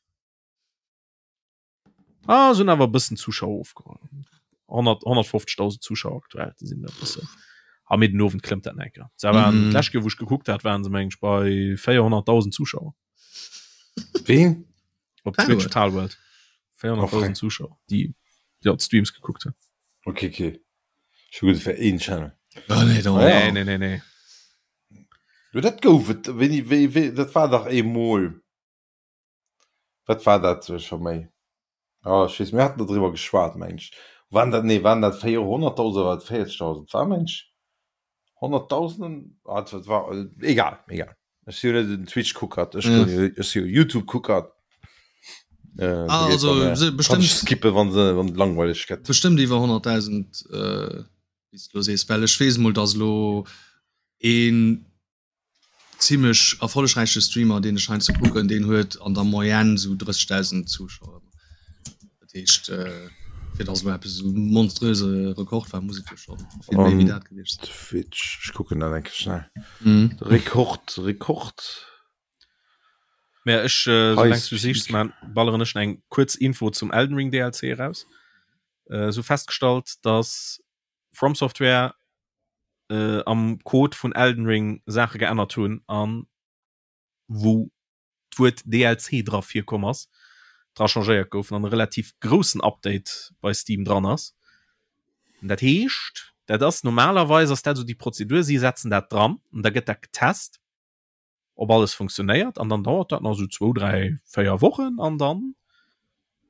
Ah, sinn awer e bëssen Zuschauer ofgeholl. 100 150.000 Zuschauer aktuell, déi sinn e bëssen. Ah, mee den Owend klëmmt dat nach eng Kéier. Se waren Mhm. d'lescht Kéier, wou ech gekuckt hat, waren se meng ech bei 400.000 Zuschauer. Ween? Op Palworld. Twitch Palworld. 400.000 Zuschauer, déi ja, d'Streams gekuckt hunn. Okay, okay. Ech hu geduet, et wär een Channel. Oh, nee, da, Ah, ja. Nee, nee, nee, nee. Jo, dat gouf et. Wéini, wéi, wéi, dat war dach eemol. Wat war dat scho méi? Ah, ech weess, mir haten do driwwer geschwat, meng ech. Waren dat, nee, waren dat 400.000 oder war dat 40.000? War, meng ech, 100.000? Ah, dat war, egal, egal. Ech si jo net en Twitch-Kuckert, ech Ja. ech si jo YouTube-Kuckert. Äh, Ah, also, se- kann bestimmt- ech skippen, wann se, wann et langweileg gëtt. Bestëmmt iwwer 100.000, äh, wéi s de lo sees, well ech weess mol, dass elo een zimmlech erfollegräiche Streamer deen ech heiansdo kucken, deen huet an der Moyenne sou 30.000 Zuschauer. Dat heescht fir dass elo eppes esou monströse Rekord war, muss et jo scho vill méi wéi dat gewiescht sinn. Twitch, ech kucken dat eng Kéier schnell. Mhm. Rekord, Rekord. Mä ech, äh, soulaang du High sichs, Speed. man, balleren ech eng kuerz Info zum Elden Ring DLC eraus. Äh, sou festgestallt, dass From Software äh, am Code vun Elden Ring Saache geännert hunn an wou d'Wuert DLC dra virkomm ass, dra changéiert goufen an e relativ groussen Update bei Steam dran ass. Dat heescht, dat ass normalerweis ass dat esou déi Prozedur, si setzen dat dran an da gëtt dat getest. ob alles funktionéiert an dann dauert dat nach sou zwou, dräi, véier Wochen an dann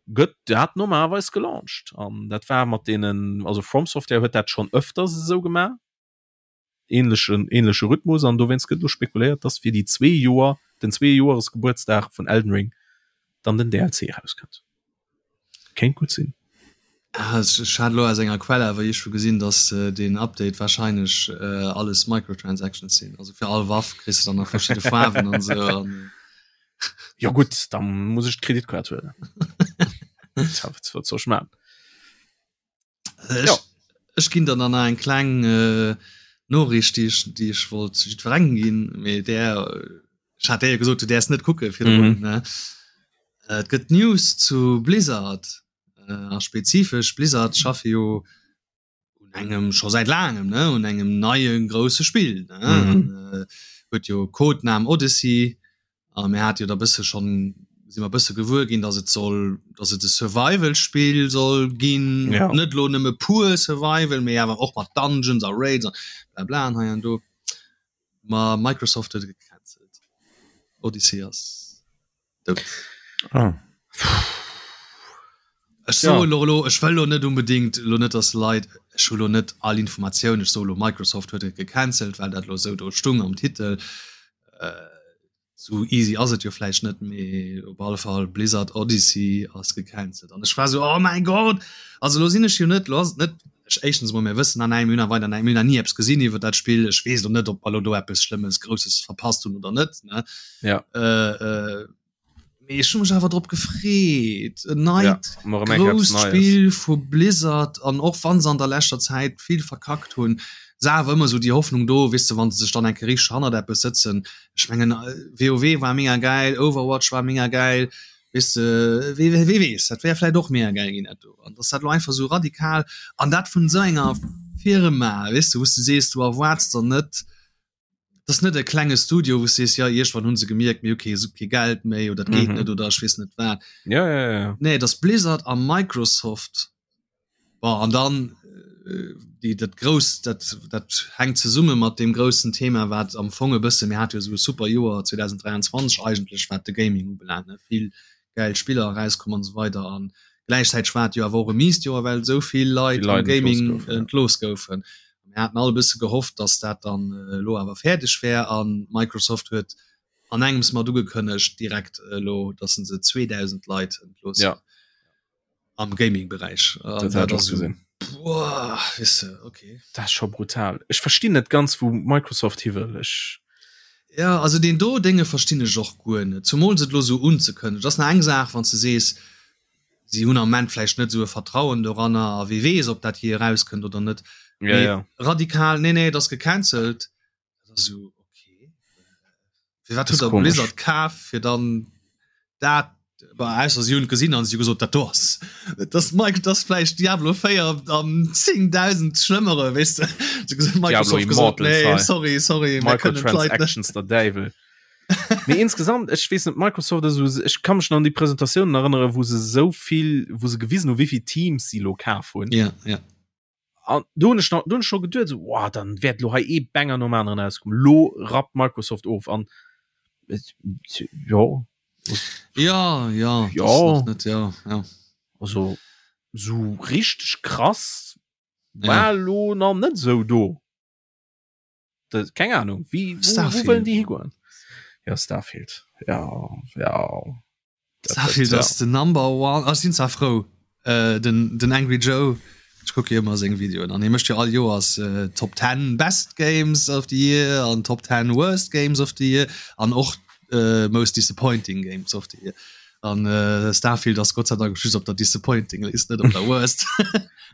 gëtt dat normalerweis gelauncht. An dat war mat deenen, also From Software huet dat schonn ëfters esou gemaach, ähnlechen, ähnleche Rhythmus an dowéinst gëtt elo spekuléiert, dass fir déi zwee Joer. den Zweejoeresgebuertsdag vun Elden Ring dann den DLC erauskënnt. Kéint gutt sinn. Ah, ech hat elo aus enger Quell awer iergendwou gesinn, dass deen Update warscheinlech alles Microtransactions sinn. Also fir all Waff kriss de dann nach verschidde Faarwen an esou. An Jo gutt, da muss ech d'Kreditkaart huelen. Wat soll ech maachen? Ech, ja. ech ginn dann nach eng kleng äh, Noriicht, déi ech, déi ech wollt jiddwerengem ginn, mee där ech hat der jo gesot, du däers net kucke virdrun, mhm. ne? Äh, et gëtt News zu Blizzard äh, a spezifesch Blizzard schaffe jo un engem scho säit laangem ne un engem neie grousse Spill ne? Mhm. An, äh, huet jo Codename Odyssey A mir hate jo da bësse schonn, si mer bësse gewuer ginn, datt et soll, datt et e Survival-Spill soll ginn. Ja. Net elo nëmme pur Survival, mee awer och mat Dungeons a Raids a blabla an hei an do. Ma Microsoft huet et gecancelt. Odyssey ass dout. Ah. Ech soe lo elo, ech wëll elo net unbedingt elo net, datt Leit, ech hu lo net all Informatioun, ech soe lo Microsoft huet et gecancelt, well dat elo esou do stung am Titel. Esou easy ass et jo vläicht net, mee op alle Fall Blizzard Odyssey ass gecancelt. An ech war esou, oh mäi Gott! Also elo sinn ech jo net, elo ass et net, ech éischtens emol, mir wëssen nach näischt, mir hunn nach weider näischt, mir hunn nach ni eppes gesinn iwwer dat Spill, ech weess elo net, ob mer elo do eppes Schlëmmes, Grousses verpasst hunn oder net, ne? Ja. Mee ech hu mech awer drop gefreet. En neit ja, grousst Spill vu Blizzard an och wann se an der leschter Zäit vill verkackt hunn, se awer ëmmer sou déi Hoffnung do, weess de, wann se sech dann eng Kéier richteg hannert eppes sëtzen. Ech mengen WoW war mega gäil, Overwatch war mega gäil, weess de, wee wee weess, dat wär vläicht och mega gäil ginn dat do. An dass dat lo einfach sou radikal an dat vun esou enger Firma, weess de, wou s de sees, du erwaarts der net, Dat ass net e klenge Studio, wou s sees, ja iergendwann hu se gemierkt, mir hu kee, kee Geld méi oder et geet mhm. net oder ech weess net wat. Ja, ja, ja. Nee, dat ass Blizzard a Microsoft. Bon, an dann äh, déi, dat grouss, dat, dat hänkt zesumme mat dem groussen Thema, wat am Fong e bësse mir hat jo sou e super Joer 2023 eigentlech, wat de Gaming ubelaangt, ne? Vill gäil Spiller erauskomm an esou weider an gläichzäiteg war et jo awer och e miest Joer, well esou vill Leit am Gaming entlooss goufen. Mir haten all e bësse gehofft, datt dat dann elo awer fäerdeg wär a Microsoft huet an engems mat ugekënnegt direkt elo, datt se 2.000 Leit entloossen. Ja. Am Gaming-Beräich. Dat hat ech och gesinn. Boah, weess de, okay. Dat ass scho brutal. Ech verstinn net ganz, wou Microsoft hi wëll. Ech. Ja, also deen do Dénge verstinn ech och guer net, zumools et elo esou unzekënnegen. Et ass nach eng Saach, wann s de sees, si hunn am Ament vläicht net esou e Vertrauen doranner a wie weess, ob dat jee erauskënnt oder net. Ja, Mee ja. radikal, nee, nee, et ass gecancelt. Dat ass esou, okay. Firwat Das huet der komisch. Blizzard kaf, fir dann dat, bah, ausser si hunn et gesinn an si hu gesot, dat do ass, dat ass Mike, dat ass vläicht Diablo 4 am 10.000 schlëmmere, weess de. Si hu gesot, Diablo Microsoft gesot, Immortal, nee, hei. sorry, sorry, mir kënnen d'Leit net. Microtransactions, der Däiwel. Mee insgesamt, ech weess net, Microsoft ass esou, ech ka mech nach an déi Presentatiounen erënneren, wou se esou vill, wou se gewisen hu wéi vill Teams si elo kaf hunn. Ja, ja. An do hunn ech nach, do hunn ech scho geduet esou, wow, dann wäert elo hei ee Banger nom aneren erauskommen. Elo rappt Microsoft of an jo. Ja, ja, Ja. das nach net, ja, ja. Also esou richteg krass war elo nach net esou do. Das, keng Ahnung, wie, wo, wo wëllen déi higoen? Ja, Starfield. Ja, ja. Starfield ass den Number One. Ech sinn zwar frou, äh, den, den Angry Joe, ech kucke jo ëmmer seng Videoen an hie mécht jo all Joers äh, Top 10 Best Games of the Year an Top 10 Worst Games of the Year an och äh, Most Disappointing Games of the Year. An äh, Starfield ass Gott sei Dank just op der Disappointing List, net op der Worst.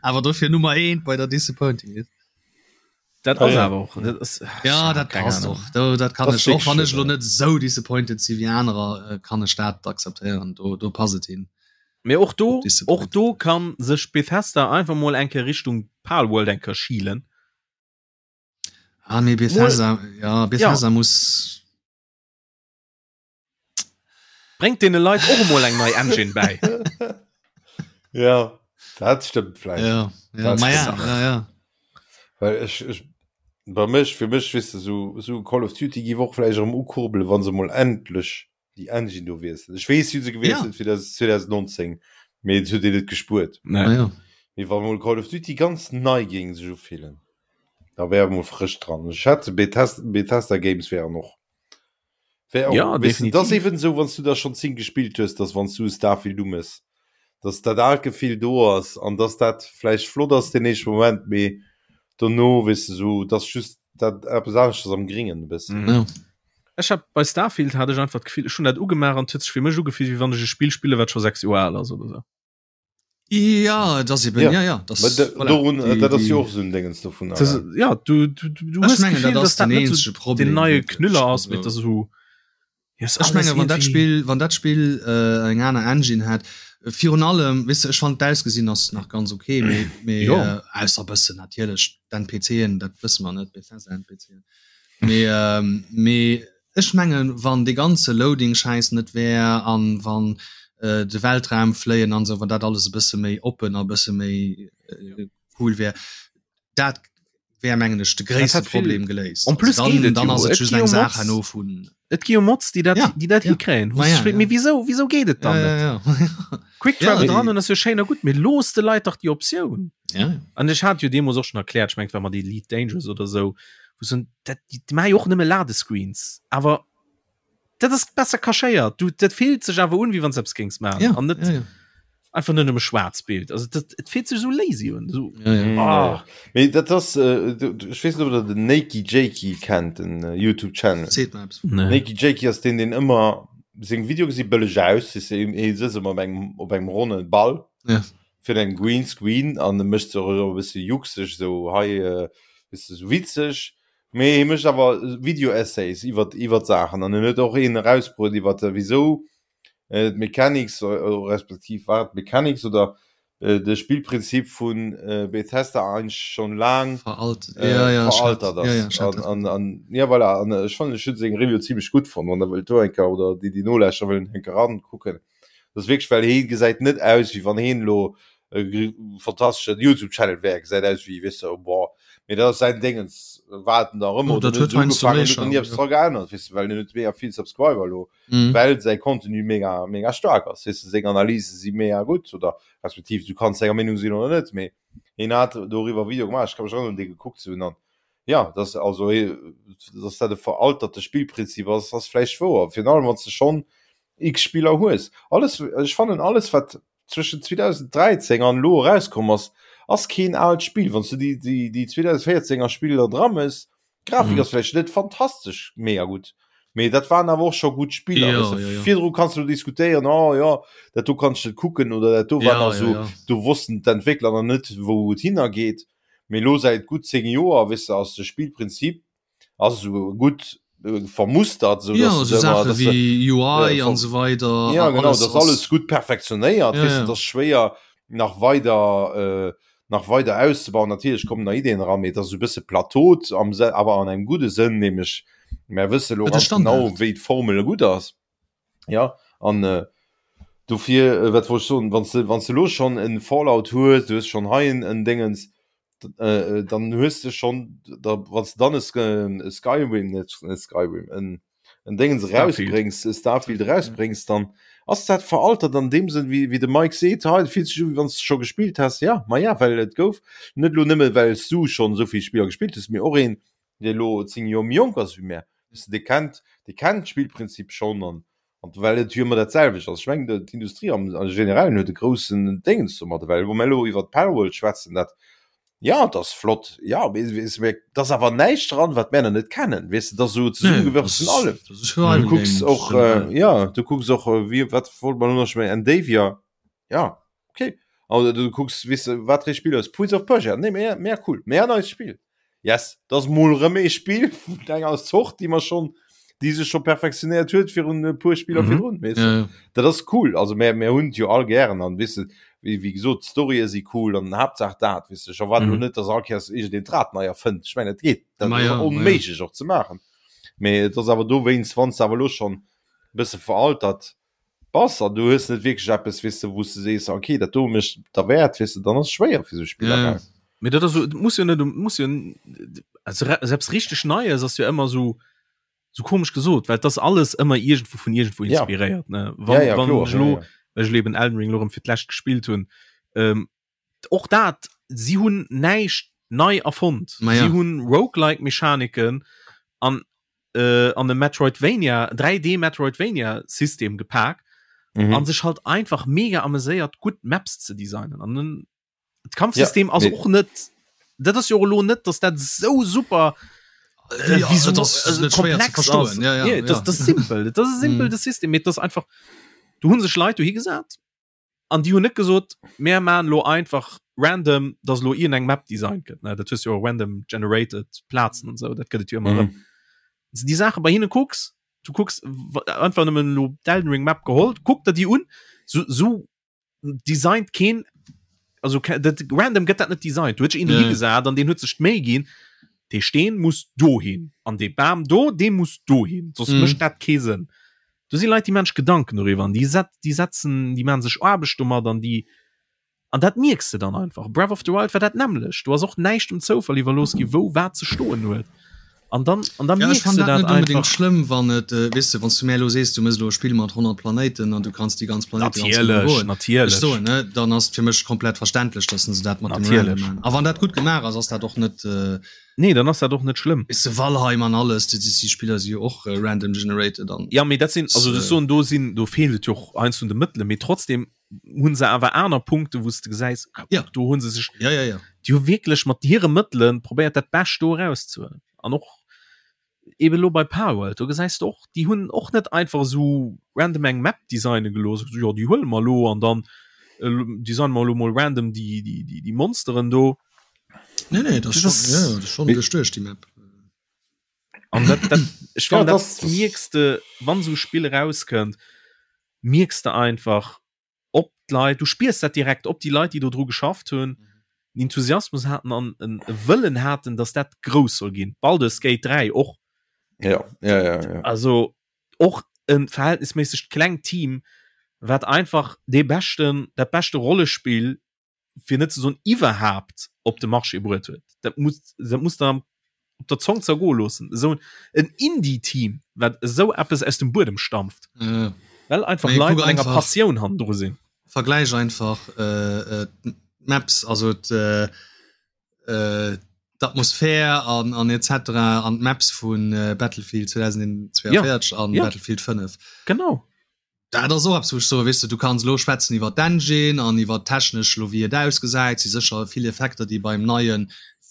Awer dofir Nummer 1 bei der Disappointing List. Dat ass awer och dat ass, Ja, dat passt och. Do, dat kann ech och, wann ech lo net sou disappointed si wéi anerer, äh, kann ech dat akzeptéieren. Do, do passt et hin. Mee och do, och do kann sech Bethesda einfach mol eng Kéier Richtung Palworld eng Kéier schielen. Ah, nee, Bethesda, ja, Bethesda ja. muss Bréngt deene Leit och emol eng nei Engine bäi. Ja, dat stëmmt vläicht. Ja, ja, ma ja, ja, ja. Well ech, ech, bei mech, fir mech, weess de, sou, sou Call of Duty giff och vläicht erëm ukurbelen, wa se mol endlech déi Engine do wiesselen. Ech weess, si hu se gewiesselt ja. fir das 2019, mee et huet een net gespuert. Nee. Ah, ja. Mee wa mol Call of Duty ganz nei géing sech ufillen, da wär emol frësch dran. Ech schätze Bethesda, Bethesda Games wären och. Wär och, ja, weißt du, das eben so wann du da schon 10 gespielt hues, dass wann du Starfield umës, dass dat aalt Gefill do ass an dass dat vläicht flott ass den éischte Moment, mee dono weess du so dass just dat eppes aneschters am Gringen e bëssen. Mhm. Ja. Ech hab bei Starfield hat ech einfach d'Gefill, ech hunn dat ugemaach an et huet sech fir mech ugefillt, wéi wann ech e Spill spille wat scho 6 Joer al ass oder sou. Ja, das eben, ja. Ja, ja, das, voilà, dorun, die, dat ass jo och sou Dingens dovun. Das, ja, du, du, du hues mengen, Gefühl, dass dat net so Problem, den neie Knüller ass, mit der so Ech menge wann dat Spill wann dat Spill äh, eng aner Engine hat virun allem wis ech fand d'ausgesinn ass nach ganz okay mee, mee äh, ausser bëssen natierlech d'NPCen dat wësse mer net Bethesda NPCen mee ähm, mee Ech mengen wann dee ganze Loading Schäiss net wär an wann de Weltraum fléien an sou, wann dat alles e bësse méi oppen a bësse méi cool wär, dat wär mengen ech de gréisste Problem geléist. En plus dann, dann ass et just eng Saach herno vun. Et gi jo Mods déi dat déi dat hikréien. Ma ja, ja. Mee wisou wisou geet et dann net? Quick Travel dran an ass jo schéin a gutt, mee looss de Leit dach déi Optioun. An ech hat jo deemools och schonn erkläert, ech mengen et war mat Elite Dangerous oder sou, wou se dat déi maache jo och nëmme Ladescreens, awer dat ass besser cachéiert. Du dat fillt sech awer un, wéi wann s eppes géings maachen Ja, an net ja, ja. einfach net nëmme schwaarz Bild. Also dat et fillt sech esou lazy un. Esou, Ja, ja. Mm, ah. ja. Mee dat ass, äh, du, du, ech weess net, ob der den Nakey Jakey kennt, den äh, YouTube Channel. Seet mer eppes. Nee. Nakey Jakey ass deen, deen ëmmer seng Videoe gesi bëlleg aus, si se hie sëtzt ëmmer op engem op engem ronne Ball Ja. fir engem Green Screen an e mécht se och ëmmer e bësse juckseg, esou hei, äh, weess de, esou witzeg. Mee hie mécht awer Video-Essays iwwer iwwer Saachen an en huet och een erausbruet iwwer wisou d'Mechanics respektiv war et d'Mechanics oder de Spillprinzip vu Bethesda eigentlech schonn laang veraltert ass. An an jo voilà an ech fannen ech hunn seng Review zimmlech gutt fonnt, wann der wëllt do eng Kéier oder déi déi nolauschteren wëllen eng Kéier erankucken. Dat ass wierklech, well hee gesäit net aus wéi wann heen elo e fantasteschen Youtube Channel wär, gesäit aus wéi, weess de, boah, mee dat ass säin Déngens, wat en nach ëmmer, Dat huet huet heiansdo ugefaangen, méi huet nach ni Charme, eppes jo. dra geännert, weess de, well en huet mega vill Subscriber elo, well säi Contenu mega, mega staark ass, weess de, seng Analyse si mega gutt oder respektiv du kanns senger Meenung sinn oder net, mee hien hat doriwwer e Video gemaach, ech ka mech erënneren dee gekuckt ze hunn an jo, dass also, dass dat e veralterte Spillprinzip ass, ass vläicht wouer, virun allem wann s de schonn X Spiller hues. Alles, ech fannen alles wat zwëschen 2013 an elo erauskomm ass, ass keen aalt Spill. Wann s du déi déi déi 2014 er Spiller dra mëss, d'Grafik ass vläicht net fantastesch mega gutt, mee dat waren awer och scho gutt Spiller. Jo, Weess de, jo, jo. virdru kanns du diskutéieren, oh jo, dat do kann ech net kucken oder dat do war Ja, nach ja, esou, ja. do wossten d'Entwéckler nach net wou et hinnergeet. Mee elo säit gutt 10 Joer, weess de, ass de Spillprinzip ass esou gutt vermustert sou ja, so Sache wie UI an so weiter ja, genau, alles, das alles gut perfektionéiert ja, ja. das schwéier nach weiter äh, nach weiter auszubauen natürlich kommen da Ideen ran mee das so bësse plateaut am awer an engem gute Sënn nämlech mer wësse lo ganz genau wéi d'Formel gut ass ja an äh, dofir äh, wat wollt ech soen wann du wann du lo schon en Fallout hues du hues schon hei en en Dingens äh, dann hues du schon da wann du dann e Skyrim net net Skyrim en en Dingens rausbréngs e Starfield rausbréngs dann ass dat veraltert an deem Sënn wéi wéi de Mike seet hei fillt sech u wéi wann s du scho gespillt häss ja ma ja well et gouf net lo nëmme well s du schonn esou vill Spiller gespillt hues mee och een dee lo 10 Joer méi jonk ass wéi mär, weess de, dee kennt, dee kennt d'Spillprinzip schonn an, an well et jo ëmmer dat selwecht ass. Ech mengen, d'Industrie am Generellen huet e groussen Déngens domadder, well wa mir elo iwwert Palworld schwätzen, dat, jo, et ass flott, jo, mee weess de, mee et ass awer näischt dran, wat mär nach net kennen, weess de, et ass esou zesummegewürfelt vun allem. Du kucks och, jo, du kucks och, wéi, wat wollt mer elo nach, ech mengen Endeavor, jo. Okay. Also, du kucks weess de wat fir ee Spill ass Prince of Persia nee mé mé cool mé neist Spill yes dat ass mol rëm ee Spill vun enger Zort déi mer schonn déi sech scho perfektionéiert huet virun e puer Spiller Mhm. virdrun weess de Ja, ja. dat ass cool also mär mär hunn et jo all gären an weess de wéi wéi gesot d'Storye si cool an Haaptsaach dat weess de ech erwaarden elo Mhm. net dass all Kéiers iergendeen d'Rad nei erfënnt ech mengen dat geet dat Ma ass ja, ma ja. onméiglech och ze maachen mee et ass awer dowéinst wann s de awer elo schonn e bësse veraltert bass an du hues net wierklech eppes weess de wou s de sees okay dat do mécht derwäert weess de dann ass et schwéier fir sou Spiller Ja. gell. Mee dat ass so, et muss jo net um muss jo also selbst richteg Neies ass jo ëmmer sou sou komesch gesot, well et ass alles ëmmer iergendwou vun iergendwou Ja. inspiréiert ne. Wann Ja, ja, wann kloer, ech ja, elo ja. well ech elo eben Elden Ring elo erëm fir d'lescht gespillt hunn, ähm, och dat si hunn näischt nei erfonnt. Ma ja. Si hunn Roguelike Mechaniken an. äh, an e Metroidvania 3D Metroidvania System gepak mhm. an sech halt einfach mega ameséiert gutt Maps ze designen an den Kampfsystem ja, ass nee. och net dat ass jo lo net dass dat so super äh, ja, wieso, das, also, komplex ass. Ja, ja, ja, das, das simpel das ist simpel mhm. das System mit das einfach du hunn sech Leit du hi gesat An déi hunn net gesot, mär maachen elo einfach random, dass elo iergendeng Map designt gëtt, ne, dat hues jo random generated Plazen an esou, dat gëtt et jo ëmmer erëm. Wann s de déi Saache bei hinne kucks, du kucks einfach nëmmen elo d'Elden Ring Map geholl, kuck der déi un, sou, sou designt keen, also dat random gëtt dat net designt. Do huet sech een dohi gesat an deen huet sech d'Méi ginn, dee Steen muss dohin an dee Bam do, dee muss dohin, soss mécht dat kee Sënn. Do si Leit, déi maachen sech Gedanken doriwwer an déi set, déi setzen, déi maachen sech Aarbecht domat an déi, an dat mierks de dann einfach. Breath of the Wild war dat nämmlecht. Do ass och näischt dem Zoufall iwwerlooss gi wou wat ze stoen huet. An dann, an dann Ja, ech mierks fannen de dat dat net unbedingt einfach. schlëmm, wann et, weess de, wann s du mär elo sees, du méchs elo e Spill mat 100 Planéiten an du kanns déi ganz Planéite ganz genau Natierlech, goen. Ech natierlech. soen, ne, dann ass et fir mech komplett verständlech, dass se dat mat dem Random Natierlech. maachen. A wann dat gutt gemaach ass, ass dat och net, Nee, dann ass dat och net schlëmm. Weess de, Valheim an alles, déi déi Spiller si jo och random generated an. Ja, mee dat sinn, also ech soen, do sinn, do feelt et jo och heiansdo un de Mëttelen, mee trotzdem hu se awer aner Punkte wou s de gesäis, ah, Ja. kuck, do hu se sech, Ja, ja, ja. déi hu wierklech mat hire Mëttele probéiert dat Bescht do erauszehuelen. An och eben elo bei Palworld, do gesäis de och, déi hunn och net einfach esou random eng Map designe gelooss, esou, jo, déi huele mer elo an dann designe mer elo mol random déi, déi, déi, déi Monsteren do. Nee, nee, das, das, schon, ja, das schon duerchduecht die Map. An dat, dat, ich ja, das, das mierkst de, wann so Spiel rauskënnt, mierkst de einfach, ob d'Leit, du spiers dat direkt, ob die Leit, déi do dru geschafft hunn, mm. Enthusiasmus hatten an en Wëllen hatten, dass dat grouss soll ginn. Baldur's Gate 3 och. Ja, ja, ja, ja. Also och en verhältnisméissegt klengt Team, wat einfach dee beschten, dat beschte Rollespill fir net ze soen iwwerhaapt op de Marché bruet huet. Dat muss dat muss der op der Zong zergoe loossen. Esou en Indie-Team, wat esou eppes aus dem Buedem stampft. Ja. Well einfach Leit mat enger Passioun hannendru sinn. Vergläich einfach äh, äh, d'Maps, also äh, äh, d'Atmosphär an, an etc. An d'Maps vun äh, Battlefield 2042 ja. an ja. Battlefield 5. Genau. Dat ass och eppes, wou ech soen, weess de, du kanns elo schwätzen iwwer d'Engine an iwwer d'technesch elo wéi et ausgesäit, si sécher vill Effekter, déi beim neie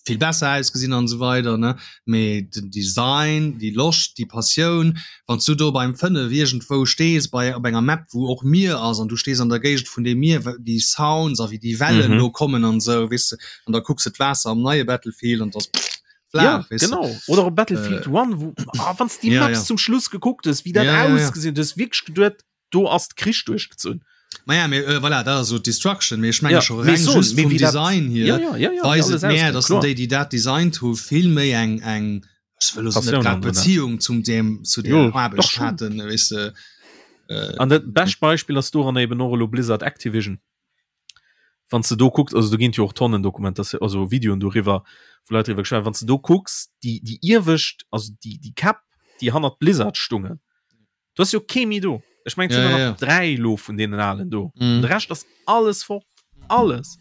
vill besser ausgesinn an esou weider, ne, mee den Design, déi Loscht, déi Passioun, wann s du do beim 5 iergendwou stees bei op enger Map, wou och Mier ass an du stees an der Géigend vun deem Mier, déi Sounds a wéi déi Wellen do kommen an esou, weess de, an da kucks de d'Waasser am neie Battlefield an 't ass. Ja, genau. Oder op Battlefield äh, One, wo ah, wann die ja, Maps ja. zum Schluss gekuckt hues, wie dat ja, ausgesinn ja, ja. hues wierklech geduet, do ass Krich duerchgezunn. Ma ja, mir, äh, voilà, dat ass so Destruction, mee ech menge ja, scho reng so, just vum Design hier ja, ja, ja, ja, weist et mehr, dass déi, déi dat designt hu vill méi eng eng ech wëll net grad Beziehung zum dem zu der Aarbecht haten, weess de. Äh, An dat bescht Beispiel ass doran eben och elo Blizzard Activision. Wann s de do kucks, also do ginn et jo och Tonnen Dokumentatioun, also Videoen doriwwer, wou Leit driwwer geschwat hunn, wann s de do kucks, déi, déi iewescht, also déi, déi Käpp, déi hannert Blizzard stungen, do ass jo kee méi do. Ech mengen, et sinn der nach 3 elo vun deenen Alen do. De Rescht ass alles fort. Alles.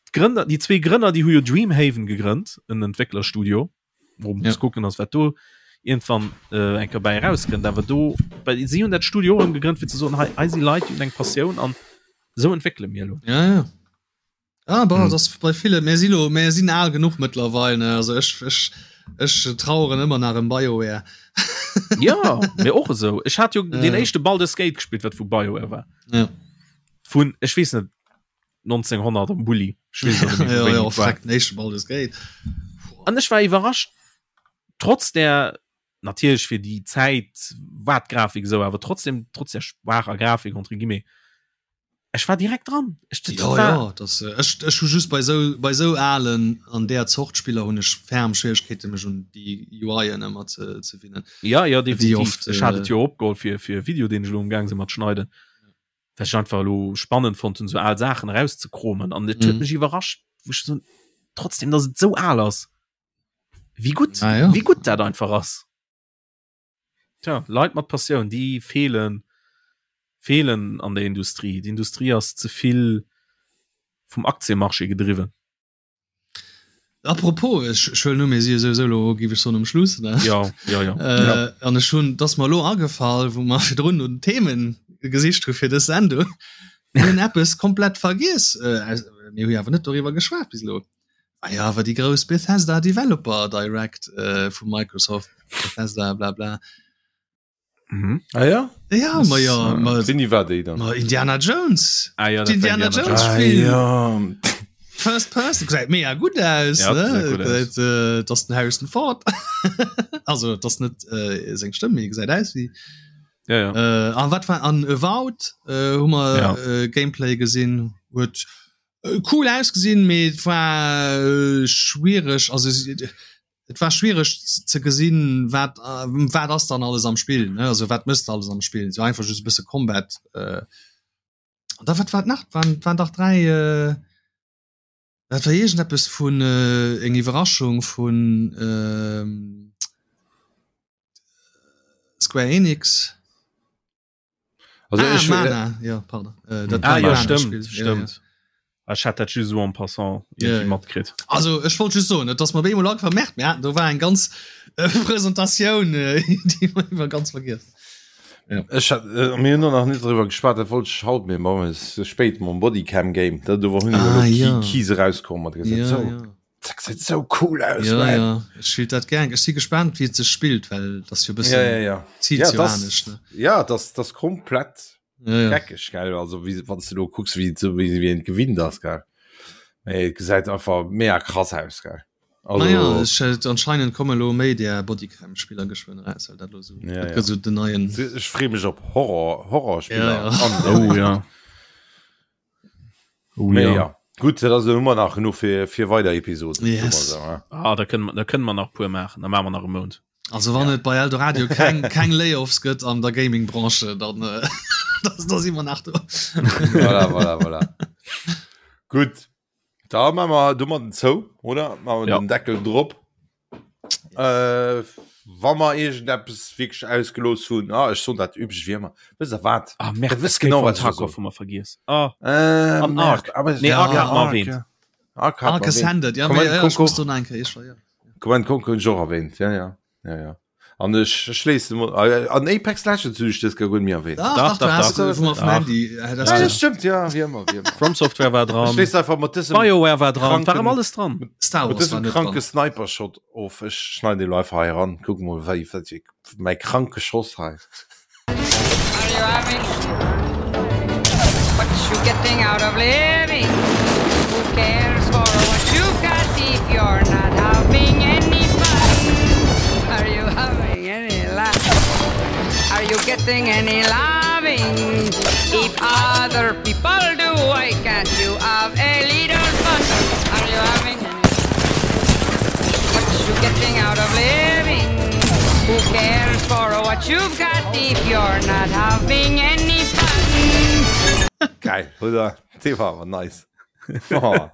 D'Grënner, déi zwee Grënner, déi hu jo Dreamhaven gegrënnt, en Entwécklerstudio. Wou muss ja. kucken ass wat do irgendwann äh, enker bei rauskënnt awer do bei sie hun dat Studio och gegrënnt fir ze soen hei hei si Leit déi hunn eng Passioun an sou entwéckele mir elo. Ja, ja. Ah, bon, hm. das bei viele mir si lo mir sinn al genuch mëttlerweil ne also ech ech ech traueren ëmmer nach em BioWare. ja mir och esou ech hat jo ja. den éischte Baldur's Gate gespielt wat vu BioWare war. Ja. Vun ech weess net 1900 am Bulli an ech war iwwerrascht trotz der natierlech fir déi Zäit war d'Grafik esou awer trotzdem trotz der schwaacher Grafik entre guillemets ech war direkt dran ech, dat ja, war, ja, das, äh, ech, ech hu just bei sou bei sou alen an der Zort Spiller hunn ech ferm Schwieregkeete mech un déi UIen ëmmer ze, ze winnen. Ja ja definitiv oft, ech hat et jo opgeholl fir fir e Video deen ech elo am Gaang sinn mat schneiden. Well ech einfach elo spannend fonnt hunn, sou al Saachen erauszekromen an et huet mhm. mech iwwerrascht, wou ech so, trotzdem, dass et sou al ass. Wéi gutt, ah, ja. wéi gutt dat einfach ass. Tja, Leit mat Passioun, déi feelen, feelen an der Industrie. D'Industrie ass ze vill vum Aktienmarché gedriwwen. Apropos, ech ech huelen u mir si jo souwisou elo, géif ech soen, um Schluss, ne? Ja, ja, ja. Äh, Ja. An ech hunn, 't ass mer elo agefall, wou mer virdrun no den Themen gesicht hu fir dës Sendung, mir hunn eppes komplett vergiess. Äh, aus, mir hu jo awer net doriwwer geschwat bis elo. Ah ja, awer déi grouss Bethesda Developer Direct äh, vu Microsoft, Bethesda bla bla. Mhm. Ah ja? Ja, ma ja, äh, ma, Wéini war déi dann? ma Indiana Jones. Ah, ja, dat war Indiana Indiana Jones Ah, Spiel. ja. First Person gesäit mega gutt aus Ja, ne? gesäit gutt aus. Dat, äh, dat ass den Harrison Ford. also dat ass net äh, seng Stëmm, mee gesäit aus wéi. Ja, ja. Äh, an wat war an Avowed äh, hu mer Ja. äh, Gameplay gesinn, huet äh, cool ausgesinn, mee et war äh, schwiereg, also si- et war schwiereg ze gesinn, wat äh, wat ass dann alles am Spill, ne? Also wat mësst alles am Spill, so einfach just e bësse Combat. Äh, an da wat war nach waren, waren dach 3 äh, dat war iergendeppes vun äh, eng Iwwerraschung vun ähm, Square Enix. Also ah, ech, Mana, ja, pardon. Äh, dat Ah, ja, Mana stimmt, Spiel. stimmt. Ja, ja. Ech hat dat just so en passant irgendwie Ja, ja. matkritt. Also ech wollt just soen, et ass mer op eemol agefall, merkt mir haten do war eng ganz äh, Presentatioun, äh, déi mer iwwer ganz vergiess. Ech hat, äh, mir hunn nach net driwwer geschwat, dat wollt ech haut, mee bon, et ass ze spéit mam Bodycam Game. Dat do hunn Ah, elo ja. Key Keys erauskomm mat gesot, Ja, so, ja. dat gesäit sou cool aus, Ja, man. ja. Ech spielt dat gern. Ech si gespannt, wéi et sech spillt, well dat ass jo e bëssen Ja, ja, ja. zielt Ja, jo das, anescht, ne? ja, das, das komplett Ja, ja. geckeg, gell? Also, wie, wann du do kucks, wéi, so, wéi, wéi een gewinnt ass, gell? Mee et gesäit einfach mega krass aus, gell? Also, Naja, ech, äh, anscheinend komme lo méi där Bodycam-Spiller geschwënn eraus, well dat lo so, Ja, dat ja. gëtt so den neien. ech free mech op Horror, Horrorspiller. Ja, ja. An, Oh ja. Oh Mee ja. ja. Gutt, dat ass ëmmer nach genuch fir, fir weider Episoden. Yes. So, ja. Ah, da kënnen, da kënnen mer nach puer maachen, da maache mer nach e Mount. Also wann et bei Eldoradio keng, keng Layoffs gëtt an der Gaming-Branche, dann, äh, da, da si mer nach do. Voilà, voilà, voilà. Gutt, da maache mer domadden zou, oder? Maache mer Ja. den Deckel drop. Äh, wa mer iergendeppes wierklech ausgelooss hunn, ah, ech soen dat üblech wéi ëmmer, wësst der wat? Ah, Merde, Der wësst Escape genau, from wat ech Tarkov soen. hu mer vergiess. Ah, Äh, An Merde, Ark. aber Nee, Ja, Ark hat mer Ark, erwähnt. ja. Ark hat Ark mer erwähnt. Ascended, ja, Command mee, ja, ech Conquer. muss do nach eng Kéier, ech war, ja. Command Conquer hunn ech och erwähnt, ja, ja. Ja, ja. An ech schléissen emol äh, an Apex Legends hunn ech dës guer net méi erwähnt. Dach, Dach, dach, du dach, hast, dach. wou mer vum Dach. Handy, äh, das Ja, ja, das stimmt, ja, wéi ëmmer, wéi ëmmer. From Software war Ech dran, schléiss einfach mat dësem BioWare war dran, war kranken- ëm alles dran. Star Mat Wars war dësem net kranke dran. Sniper-Shot of. Ech schneiden elo einfach hei eran. Kuck mol, wéi, wat, mäi kranke Schoss hei. Are you having what you getting out of living? Who cares for what you've got if you're not having any fun? Are you having any laugh? Are you getting any loving? If other people do, why can't you have a little fun? Are you having any what you getting out of living? Who cares for what you've got if you're not having any fun? Geil, oder? Dee war awer nice. Oh,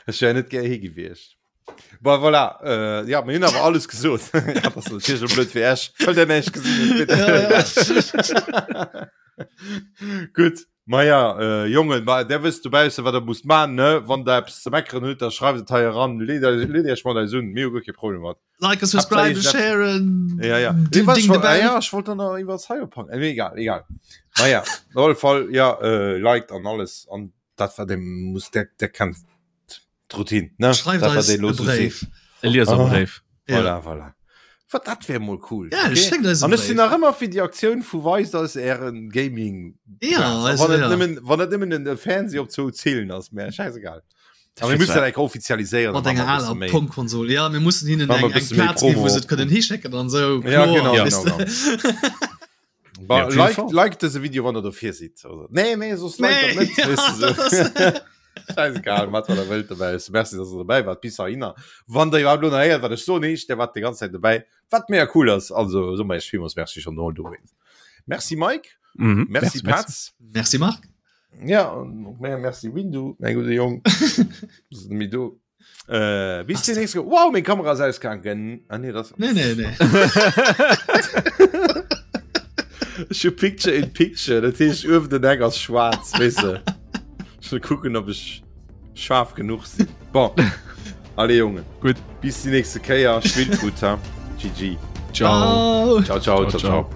ech wär net gär hie gewiescht. Bon, voilà, äh, ja, mir hunn awer alles gesot. Ja, dat ass natierlech elo blöd fir Iech, well der näischt gesinn hutt. Ja, ja. Gutt, ma ja, äh, Jongen, ma der wësst dobausse, wat der musst man, ne? Wann der eppes ze meckeren hutt, da schreift et hei eran, leet leet Iech mat eis un, mir hu guer kee Problem mat. Like a subscribe, share Ja, ja. Ding, Nee, ding the bell. ja, ich wollte noch iwwer Cyberpunk. Äh, egal, egal. Naja, op alle Fall, ja, äh, liked an alles. An dat war dem muss der, der kennt d'Routine, ne? Schreift Dat, wat eis ee lo e so Bréif. seet. E Lieserbréif. Ja. Voilà, voilà. Wat dat wär mol cool. Ja, schéckt eis e An ech sinn Bréif. nach ëmmer fir déi Aktioun vu weist eis ären Gaming. Ja, also, wann et ja. nëmmen, wann et nëmmen en Fernseh op zwou Zillen ass, mär scheißegal. Aber wir müssen dat enk offizialiséieren. Mat enger aler Pong-Konsol. Ja, mir mussen hinnen Machen eng, wir eng bisschen méi Plaz ginn, wou Promo. se et kënnen hischécken an sou. Ja, Kloer, genau, weess genau, de. Ba, Ja, auf jeden like, Fall. like dëse Video, wann der dofir sidd. Also, nee, nee, soss like Nee, dat net. ja, weess du dat so. ass- Scheißegal, mat wat der wëllt dobäi. Merci, dass der dobäi wart. Bis dahinner. Wann der iwwerhaupt lo nach héiert, wat ech soen, heescht, der wart déi ganz Zäit dobäi. Wat mega cool ass. Also, so mol iech villmools Merci schon mol dowéinst. Merci Mike. Mhm. Merci, Petz. Merci Marc. Ja, und mehr merci Windu, mein guter Jong. Mi do. Äh, bis demnächst. Wow, meng Kamera ass ausgegangen. Ah, nee, das. Nee, nee, nee. Ech hu Picture in Picture, dat heescht uewen den Eck ass schwaarz, weess de. Ech wëll kucken, ob ech scharf genuch sinn. Bon. Allez Jongen. Gutt. Bis déi nächste Kéier. Spillt gutt, ha. GG. Ciao. Ciao, ciao, ciao, ciao.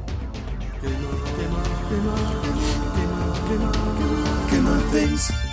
Gamer, Gamer, Gamer, Gamer, Gamer, Gamer Things.